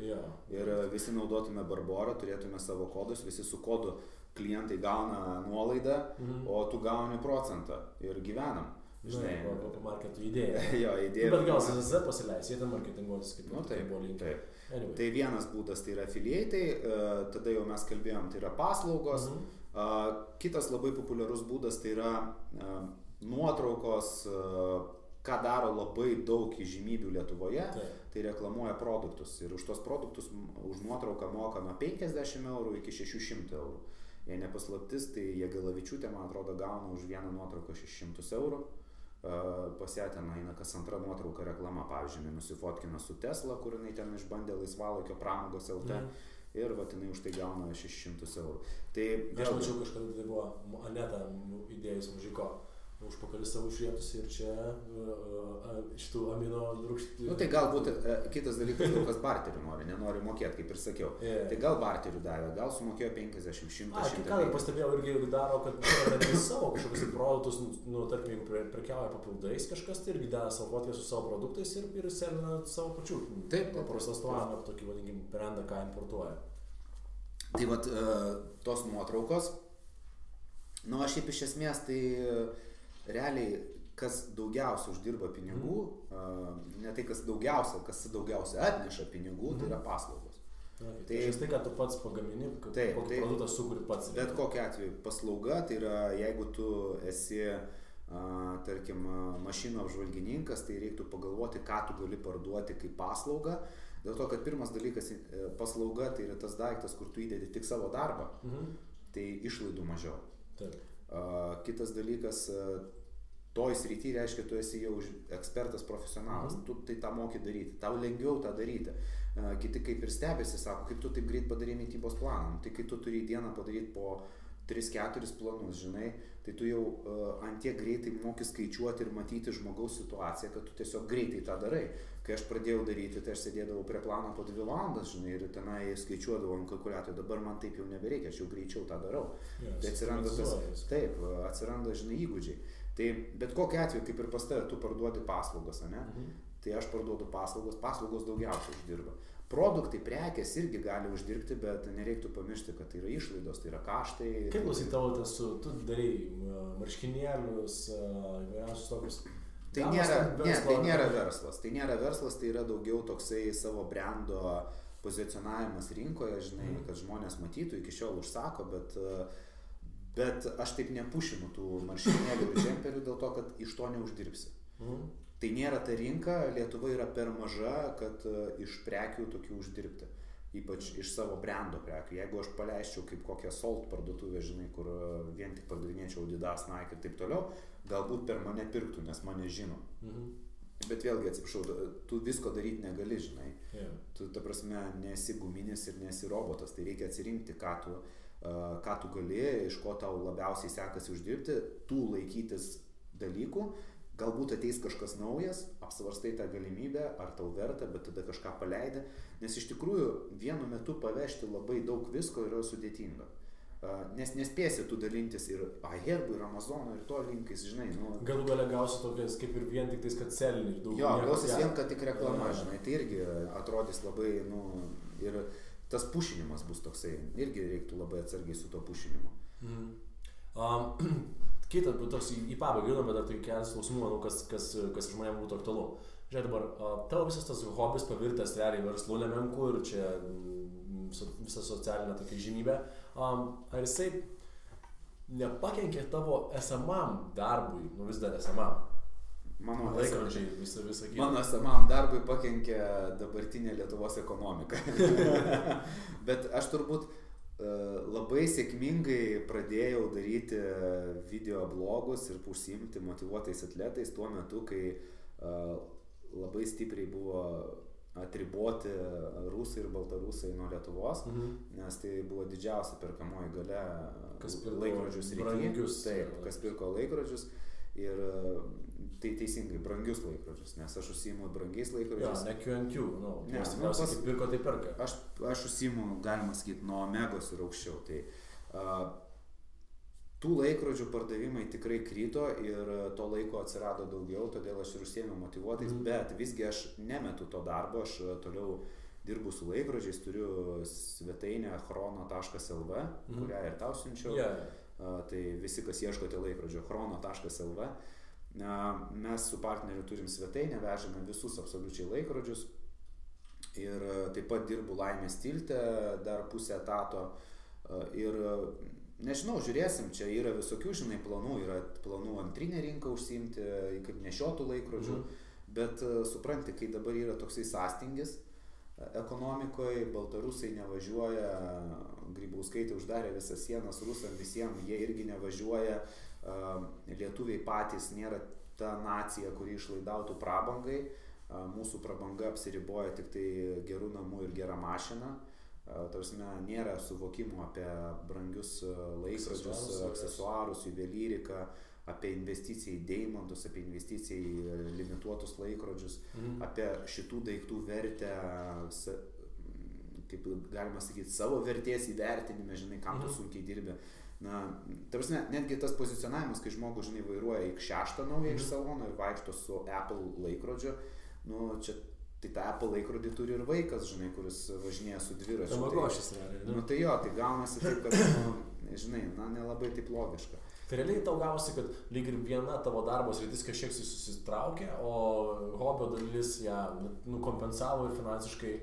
Ir visi naudotume Barborą, turėtume savo kodus, visi su kodu klientai gauna nuolaidą, o tu gauni procentą ir gyvenam. Žinai, po marketų idėją. Jo, idėja. Bet gal CZZ pasileis, jie ten marketinguotis kaip buvo linkę. Anyway. Tai vienas būdas tai yra affiliatai, tada jau mes kalbėjom, tai yra paslaugos. Kitas labai populiarus būdas tai yra nuotraukos, ką daro labai daug įžymybių Lietuvoje, tai reklamuoja produktus. Ir už tos produktus už nuotrauką moka nuo 50 eurų iki 600 eurų. Jei nepaslaptis, tai Jagelavičiūtė, man atrodo, gauna už vieną nuotrauką 600 eurų. Pas ją ten eina kas antra nuotrauka reklama, pavyzdžiui, nusifotkina su Tesla, kur jinai ten išbandė laisvalaikio pramogos LT ir va, jinai už tai gauna 600 eurų. Tai aš mačiau kažkada, tai buvo Aneta įdėjus Mužiko užpakalis savo išrietus ir čia šitų amino rūgštų. Nu tai galbūt kitas dalykas, kas barterių nenori mokėti, kaip ir sakiau. Tai gal barterių davė, gal sumokėjo 50, 100, 100. Ką ir pastebėjau irgi daro, kad netgi savo kažkokius produktus, nu tarkim, jeigu prekiauja papildais kažkas, tai irgi deda savo fotkę su savo produktais ir selina savo pačių. Taip. Paprastas tuomą, tokį vadinkim brandą, ką importuoja. Tai vat tos nuotraukos, nu aš šiaip iš esmės tai realiai, kas daugiausia uždirba pinigų, ne tai kas daugiausia atneša pinigų, tai yra paslaugos. Tai tai, ką tu pats pagamini, kokį produktą sukuri pats. Bet kokiu atveju paslauga, tai yra, jeigu tu esi, tarkim, mašinų apžvalgininkas, tai reiktų pagalvoti, ką tu gali parduoti kaip paslaugą. Dėl to, kad pirmas dalykas, paslauga, tai yra tas daiktas, kur tu įdedi tik savo darbą, tai išlaidų mažiau. Kitas dalykas, toj srity reiškia, tu esi jau ekspertas, profesionalas, tu tai tą moki daryti, tau lengviau tą daryti. Kiti kaip ir stebėsi, sako, kaip tu taip greit padarė mitybos planą, tai kai tu turi dieną padaryti po 3-4 planus, žinai, tai tu jau ant tiek greitai moki skaičiuoti ir matyti žmogaus situaciją, kad tu tiesiog greitai tą darai. Kai aš pradėjau daryti, tai aš sėdėdavau prie plano po 2 valandas, žinai, ir tenai skaičiuodavau ant kalkuliatorių, dabar man taip jau nebereikia, aš jau greičiau tą darau. Tai atsiranda atsiranda, žinai, įgūdžiai. Tai bet kokiu atveju, kaip ir pas tave, tu parduodi paslaugas, ane? Tai aš parduodu paslaugos daugiausiai uždirba. Produktai, prekės irgi gali uždirbti, bet nereiktų pamiršti, kad tai yra išlaidos, tai yra kaštai. Kaip klausai tavo tas, tu darai marškinėlius, įvairiausius tokius? Tai nėra verslas. Tai nėra verslas, tai yra daugiau toksai savo brando pozicionavimas rinkoje, žinai, kad žmonės matytų, iki šiol užsako, bet aš taip nepušinu tų marškinėlių ir džemperių dėl to, kad iš to neuždirbsi. Tai nėra ta rinka, Lietuva yra per maža, kad iš prekių tokių uždirbti. Ypač iš savo brando prekių. Jeigu aš paleisčiau kaip kokią Salt parduotuvę, žinai, kur vien tik pardavinėčiau Adidas, Nike ir taip toliau, galbūt per mane pirktų, nes mane žino. Bet vėlgi, atsiprašau, tu visko daryti negali, žinai. Tu, ta prasme, nesi guminis ir nesi robotas. Tai reikia atsirinkti, ką tu gali, iš ko tau labiausiai sekasi uždirbti, tų laikytis dalykų. Galbūt ateis kažkas naujas, apsvarstai tą galimybę, ar tau verta, bet tada kažką paleidai. Nes iš tikrųjų vienu metu pavežti labai daug visko yra sudėtinga. Nes nespėsi tu dalintis ir Aherbų, ir Amazono, ir to linkais, žinai. Galų gale gausi tokias kaip ir vien tik tais, kad selini ir daug. Jo, gausis vien, kad tik reklama, žinai. Tai irgi atrodys labai, ir tas pušinimas bus toksai. Irgi reiktų labai atsargiai su to pušinimu. Kita, toks į pabaigą judam, bet dar tai kelias klausimų, manau, kas žmonėms būtų aktualu. Žiūrėk dabar, tavo visas tas hobis pavirtęs realiai verslu nemenku ir čia visa socialinė tokia žymybė. Ar jisai nepakenkė tavo esamam darbui, vis dar esamam? Mano laikrodžiai visą kitą. Mano esamam darbui pakenkė dabartinė Lietuvos ekonomika. Bet aš turbūt labai sėkmingai pradėjau daryti video blogus ir užsiimti motyvuotais atletais tuo metu, kai labai stipriai buvo atriboti rusai ir baltarusai nuo Lietuvos, nes tai buvo didžiausia perkamoji galia laikrodžius rytyje. Taip, kas pirko laikrodžius ir tai teisingai, brangius laikrodžius, nes aš užsiimu brangiais laikrodžius. Ne Q&Q, nes kaip pirko, tai perka. Aš užsiimu, galima sakyti, nuo Omegos ir aukščiau. Tai tų laikrodžių pardavimai tikrai krito ir to laiko atsirado daugiau, todėl aš ir užsiėmiau motyvuotais, bet visgi aš nemetu to darbo, aš toliau dirbu su laikrodžiais, turiu svetainę chrono.lv, kurią ir tau siunčiau. Tai visi, kas ieškote laikrodžio, chrono.lv. Mes su partneriu turim svetainę, vežame visus absoliučiai laikrodžius ir taip pat dirbu Laimės tilte dar pusę etato ir nežinau, žiūrėsim, čia yra visokių, planų, yra planų antrinę rinką užsiimti, kaip nešiotų laikrodžių, bet supranti, kai dabar yra toksai sąstingis ekonomikoje, baltarusai nevažiuoja, Grybauskaitė uždarė visas sienas rusam visiems, jie irgi nevažiuoja, lietuviai patys nėra ta nacija, kuri išlaidautų prabangai, mūsų prabanga apsiriboja tik tai gerų namų ir gerą mašiną, tarsi nėra suvokimo apie brangius laikrodžius, aksesuarus, juvelyriką, apie investiciją į deimantus, apie investiciją į limituotus laikrodžius, apie šitų daiktų vertę, kaip galima sakyti, savo vertės įvertinime, žinai, kam tu sunkiai dirbi. Tarsi netgi tas pozicionavimas, kai žmogus, žinai, vairuoja X6 naują iš salono ir vaikšto su Apple laikrodžiu, čia tai tą Apple laikrodį turi ir vaikas, žinai, kuris važinėja su dviračiu. Tamagošis realiai. Tai jo, tai gaunasi taip, kad, žinai, nelabai taip logiška. Tai realiai tau gausi, kad lyg ir viena tavo darbo sritis kažkiek susitraukė, o hobio dalis ją kompensavo ir finansiškai,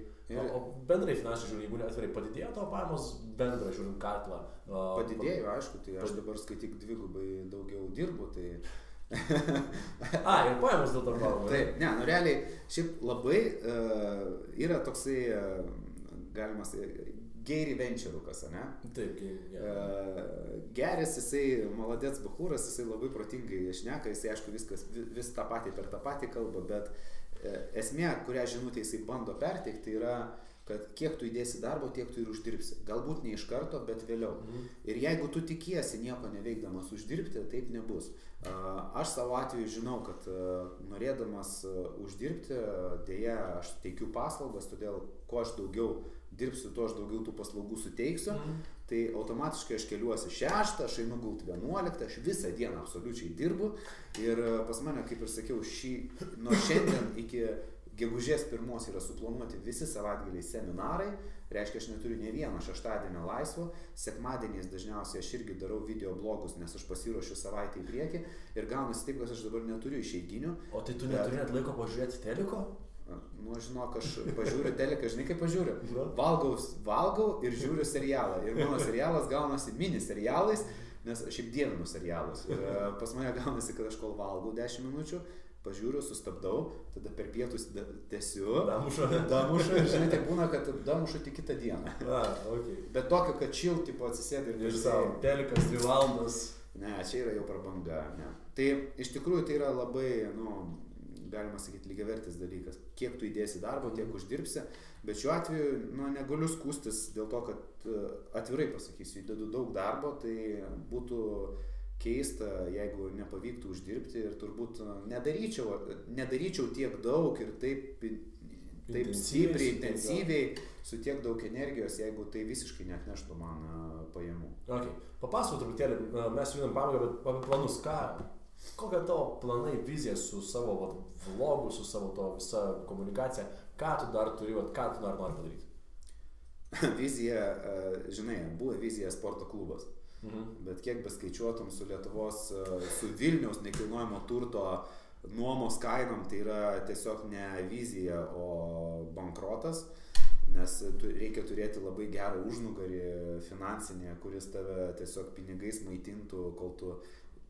o bendrai finansiškai žiūrint, jeigu atvirai padidėjo tavo pajamos, bendrai žiūrint katlą. Padidėjo, aišku, tai aš dabar skaityk dvigubai daugiau dirbu, tai... Ir pajamos dėl to kalbama. Taip, realiai, šiaip labai yra toksai, galima sakyti, Gary Venturukas, ne? Taip, Geris, jisai, maladėts bachūras, jisai labai protingai šneka, jisai aišku vis tą patį per tą patį kalbą, bet esmė, kurią žinutę jisai bando perteikti, yra, kad kiek tu įdėsi darbo, tiek tu ir uždirbsi. Galbūt ne iš karto, bet vėliau. Ir jeigu tu tikiesi nieko neveikdamas uždirbti, taip nebus. Aš savo atveju žinau, kad norėdamas uždirbti, dėja, aš teikiu paslaugas, todėl kuo aš daugiau dirbsiu, tuo aš daugiau tų paslaugų suteiksiu, tai automatiškai aš keliuosi 6, aš einu gult 11, aš visą dieną absoliučiai dirbu ir pas mane, kaip ir sakiau, nuo šiandien iki gegužės 1 yra suplanuoti visi savaitgaliai seminarai, reiškia, aš neturiu ne vieno šeštadienio laisvo, sekmadieniais dažniausiai aš irgi darau video blogus, nes aš pasiruošiu savaitę į priekį ir gaunasi taip, kad aš dabar neturiu išeiginių. O tai tu neturi net laiko pažiūrėti teliko? Žinok, aš pažiūriu teliką, žinai kaip pažiūriu? Valgau ir žiūriu serialą. Ir mano serialas gaunasi mini serialais, nes aš šiaip dievinu serialus. Ir pas mane gaunasi, kad aš kol valgau 10 minučių, pažiūriu, sustabdau, tada per pietus tęsiu. Damušu. Ir žinai, tai būna, kad damušu tik kitą dieną. Bet tokio, kad chill, tipo atsisėdai ir nežinau. Telikas 2 valandas. Ne, čia yra jau prabanga. Ne. Tai iš tikrųjų tai yra labai, galima sakyti, lygiavertis dalykas. Kiek tu įdėsi darbo, tiek uždirbsi, bet šiuo atveju negaliu skūstis dėl to, kad atvirai pasakysiu, įdedu daug darbo, tai būtų keista, jeigu nepavyktų uždirbti ir turbūt nedaryčiau tiek daug ir taip stipriai, intensyviai, su tiek daug energijos, jeigu tai visiškai neatneštų man pajamų. Papasakok truputėlį, mes judam pabaigą, bet apie planus, kokia tavo planai, vizija su savo vlogu, su savo to visa komunikacija, ką tu dar turi, ką tu dar nori padaryti? Vizija, žinai, buvo vizija sporto klubas. bet kiek beskaičiuotum su Lietuvos, su Vilniaus nekilnojamo turto nuomos kainom, tai yra tiesiog ne vizija, o bankrotas, nes reikia turėti labai gerą užnugarį finansinį, kuris tave tiesiog pinigais maitintų, kol tu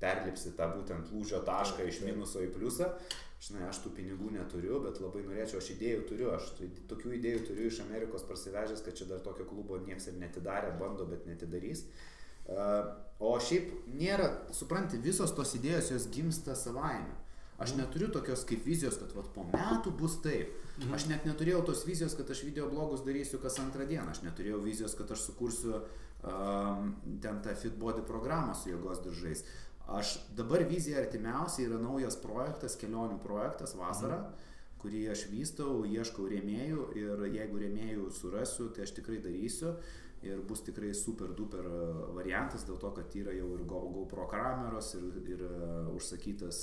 perlipsi tą būtent lūžio tašką iš minuso į pliusą. Žinai, aš tų pinigų neturiu, bet labai norėčiau, aš idėjų turiu, aš tokių idėjų turiu iš Amerikos parsivežęs, kad čia dar tokio klubo nieks ir netidarė, bando, bet netidarys. O šiaip nėra, supranti, visos tos idėjos jos gimsta savaime. Aš neturiu tokios kaip vizijos, kad vat, po metų bus taip. Aš net neturėjau tos vizijos, kad aš videoblogus darysiu kas antrą dieną. Aš neturėjau vizijos, kad aš sukursiu ten tą Fit Body programą su jėgos diržais. Aš dabar vizija artimiausiai yra naujas projektas, kelionių projektas vasarą, kurį aš vystau, ieškau rėmėjų ir jeigu rėmėjų surasiu, tai aš tikrai darysiu ir bus tikrai super duper variantas dėl to, kad yra jau ir GoPro kameros ir užsakytas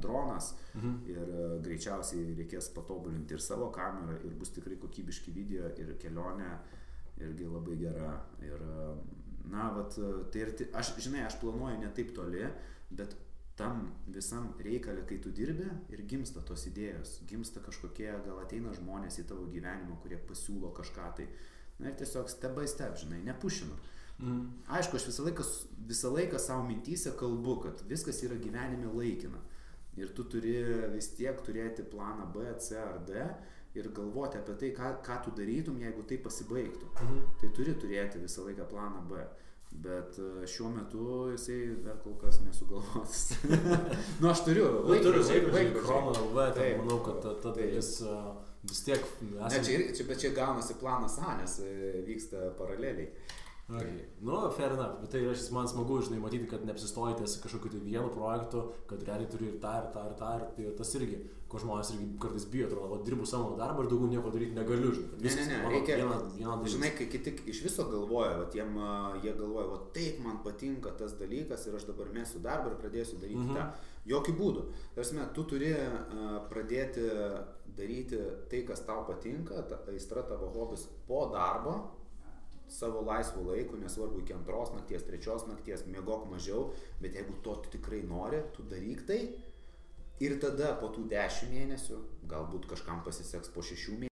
dronas ir greičiausiai reikės patobulinti ir savo kamerą ir bus tikrai kokybiški video ir kelionė irgi labai gera ir na, vat, tai ir aš, žinai, aš planuoju ne taip toli, bet tam visam reikalė, kai tu dirbi ir gimsta tos idėjos, gimsta kažkokie, gal ateina žmonės į tavo gyvenimą, kurie pasiūlo kažką tai, na ir tiesiog step by step, žinai, nepušinu. Aišku, aš visą laiką savo mintyse kalbu, kad viskas yra gyvenime laikina ir tu turi vis tiek turėti planą B, C ar D ir galvoti apie tai, ką tu darytum, jeigu tai pasibaigtų. Tai turi turėti visą laiką planą B. Bet šiuo metu jisai dar kol kas nesugalvotas. Nu, aš turiu. Laikrodžiai, Chrono LV, manau, kad ta dalis vis tiek... Bet čia gaunasi planas A, nes vyksta paraleliai. Okay. Nu, fair enough, bet tai man smagu, žinai, matyti, kad neapsistojate kažkokiu tai vienu projektu, kad realiai turi ir tą, ir tas irgi, ko žmonės irgi kartais bijo, atrodo, dirbu savo darbą ir daugiau nieko daryti negaliu, žinai. Ne, reikia, žinai, kai kiti iš viso galvoja, jie galvoja, taip man patinka tas dalykas ir aš dabar mesiu darbą ir pradėsiu daryti tą. Jokių būdų. Tarsi, tu turi pradėti daryti tai, kas tau patinka, aistra tavo hobis po darbo, savo laisvų laikų, nesvarbu iki 2 nakties, 3 nakties, miegok mažiau, bet jeigu to tu tikrai nori, tu daryk tai ir tada po tų 10 mėnesių, galbūt kažkam pasiseks po 6 mėnesių.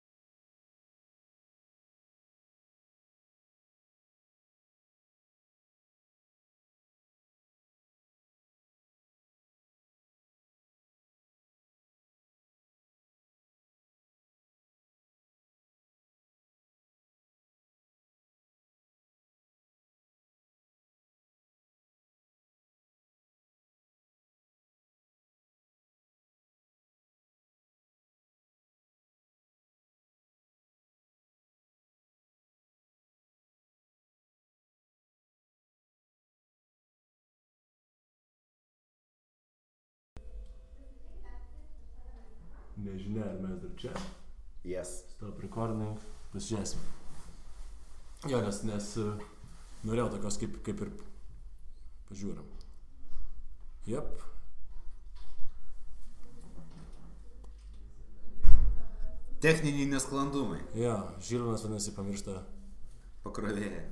Nežinia, ar mes dar čia. Yes. Stop recording. Pasižiūrėsim. Jo, nes norėjau tokios kaip ir pažiūrim. Jep. Techniniai nesklandumai. Jo, Žilvinas vadinasi pamiršta pakrovėją.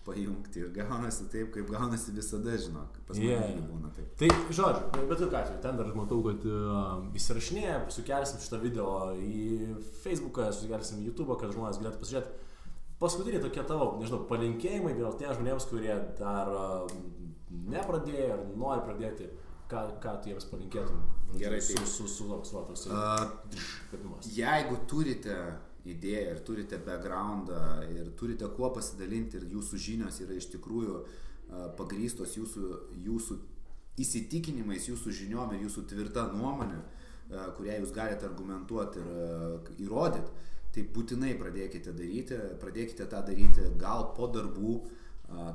Pajungti ir gaunasi taip, kaip gaunasi visada, žinok, pas mane būna taip. Tai, žodžiu, bet ką atveju, ten dar matau, kad įsirašinėja, sukelsim šitą video į Facebooką, sukelsim į YouTube'ą, kad žmonės galėtų pasižiūrėti. Paskutiniai tokie tavo, nežinau, palinkėjimai vėl tiems žmonėms, kurie dar nepradėjo ar nori pradėti, ką tu jiems palinkėtum. Gerai, Jeigu turite idėją ir turite backgroundą ir turite kuo pasidalinti ir jūsų žinios yra iš tikrųjų pagrįstos jūsų įsitikinimais, jūsų žiniom ir jūsų tvirta nuomonė, kurią jūs galite argumentuoti ir įrodyti, tai būtinai pradėkite tą daryti gal po darbų,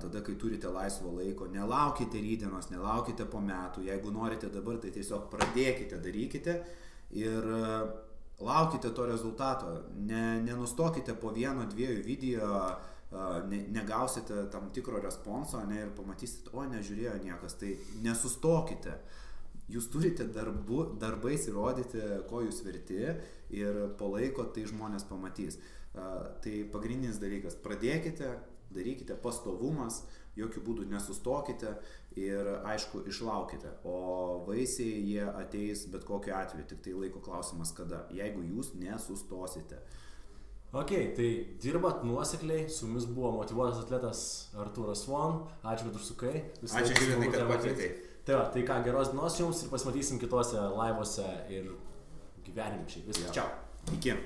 tada, kai turite laisvo laiko, nelaukite rytdienos, nelaukite po metų, jeigu norite dabar, tai tiesiog pradėkite, darykite ir laukite to rezultato, nenustokite po 1-2 video, negausite tam tikro responso ir pamatysite, nežiūrėjo niekas, tai nesustokite. Jūs turite darbais įrodyti, ko jūs verti ir po laiko tai žmonės pamatys. Tai pagrindinis dalykas, pradėkite, darykite, pastovumas, jokių būdų nesustokite ir aišku išlaukite, o vaisiai jie ateis bet kokiu atveju, tik tai laiko klausimas kada, jeigu jūs nesustosite. Ok, tai dirbat nuosekliai, su mumis buvo motyvuotas atletas Artūras Von, ačiū, kad užsukai. Ačiū, Žilvinai, kad pakvietei. Tai va, tai ką, geros dienos jums ir pasimatysim kitose laivuose ir gyvenime šiaip. Viskas, čiau. Iki.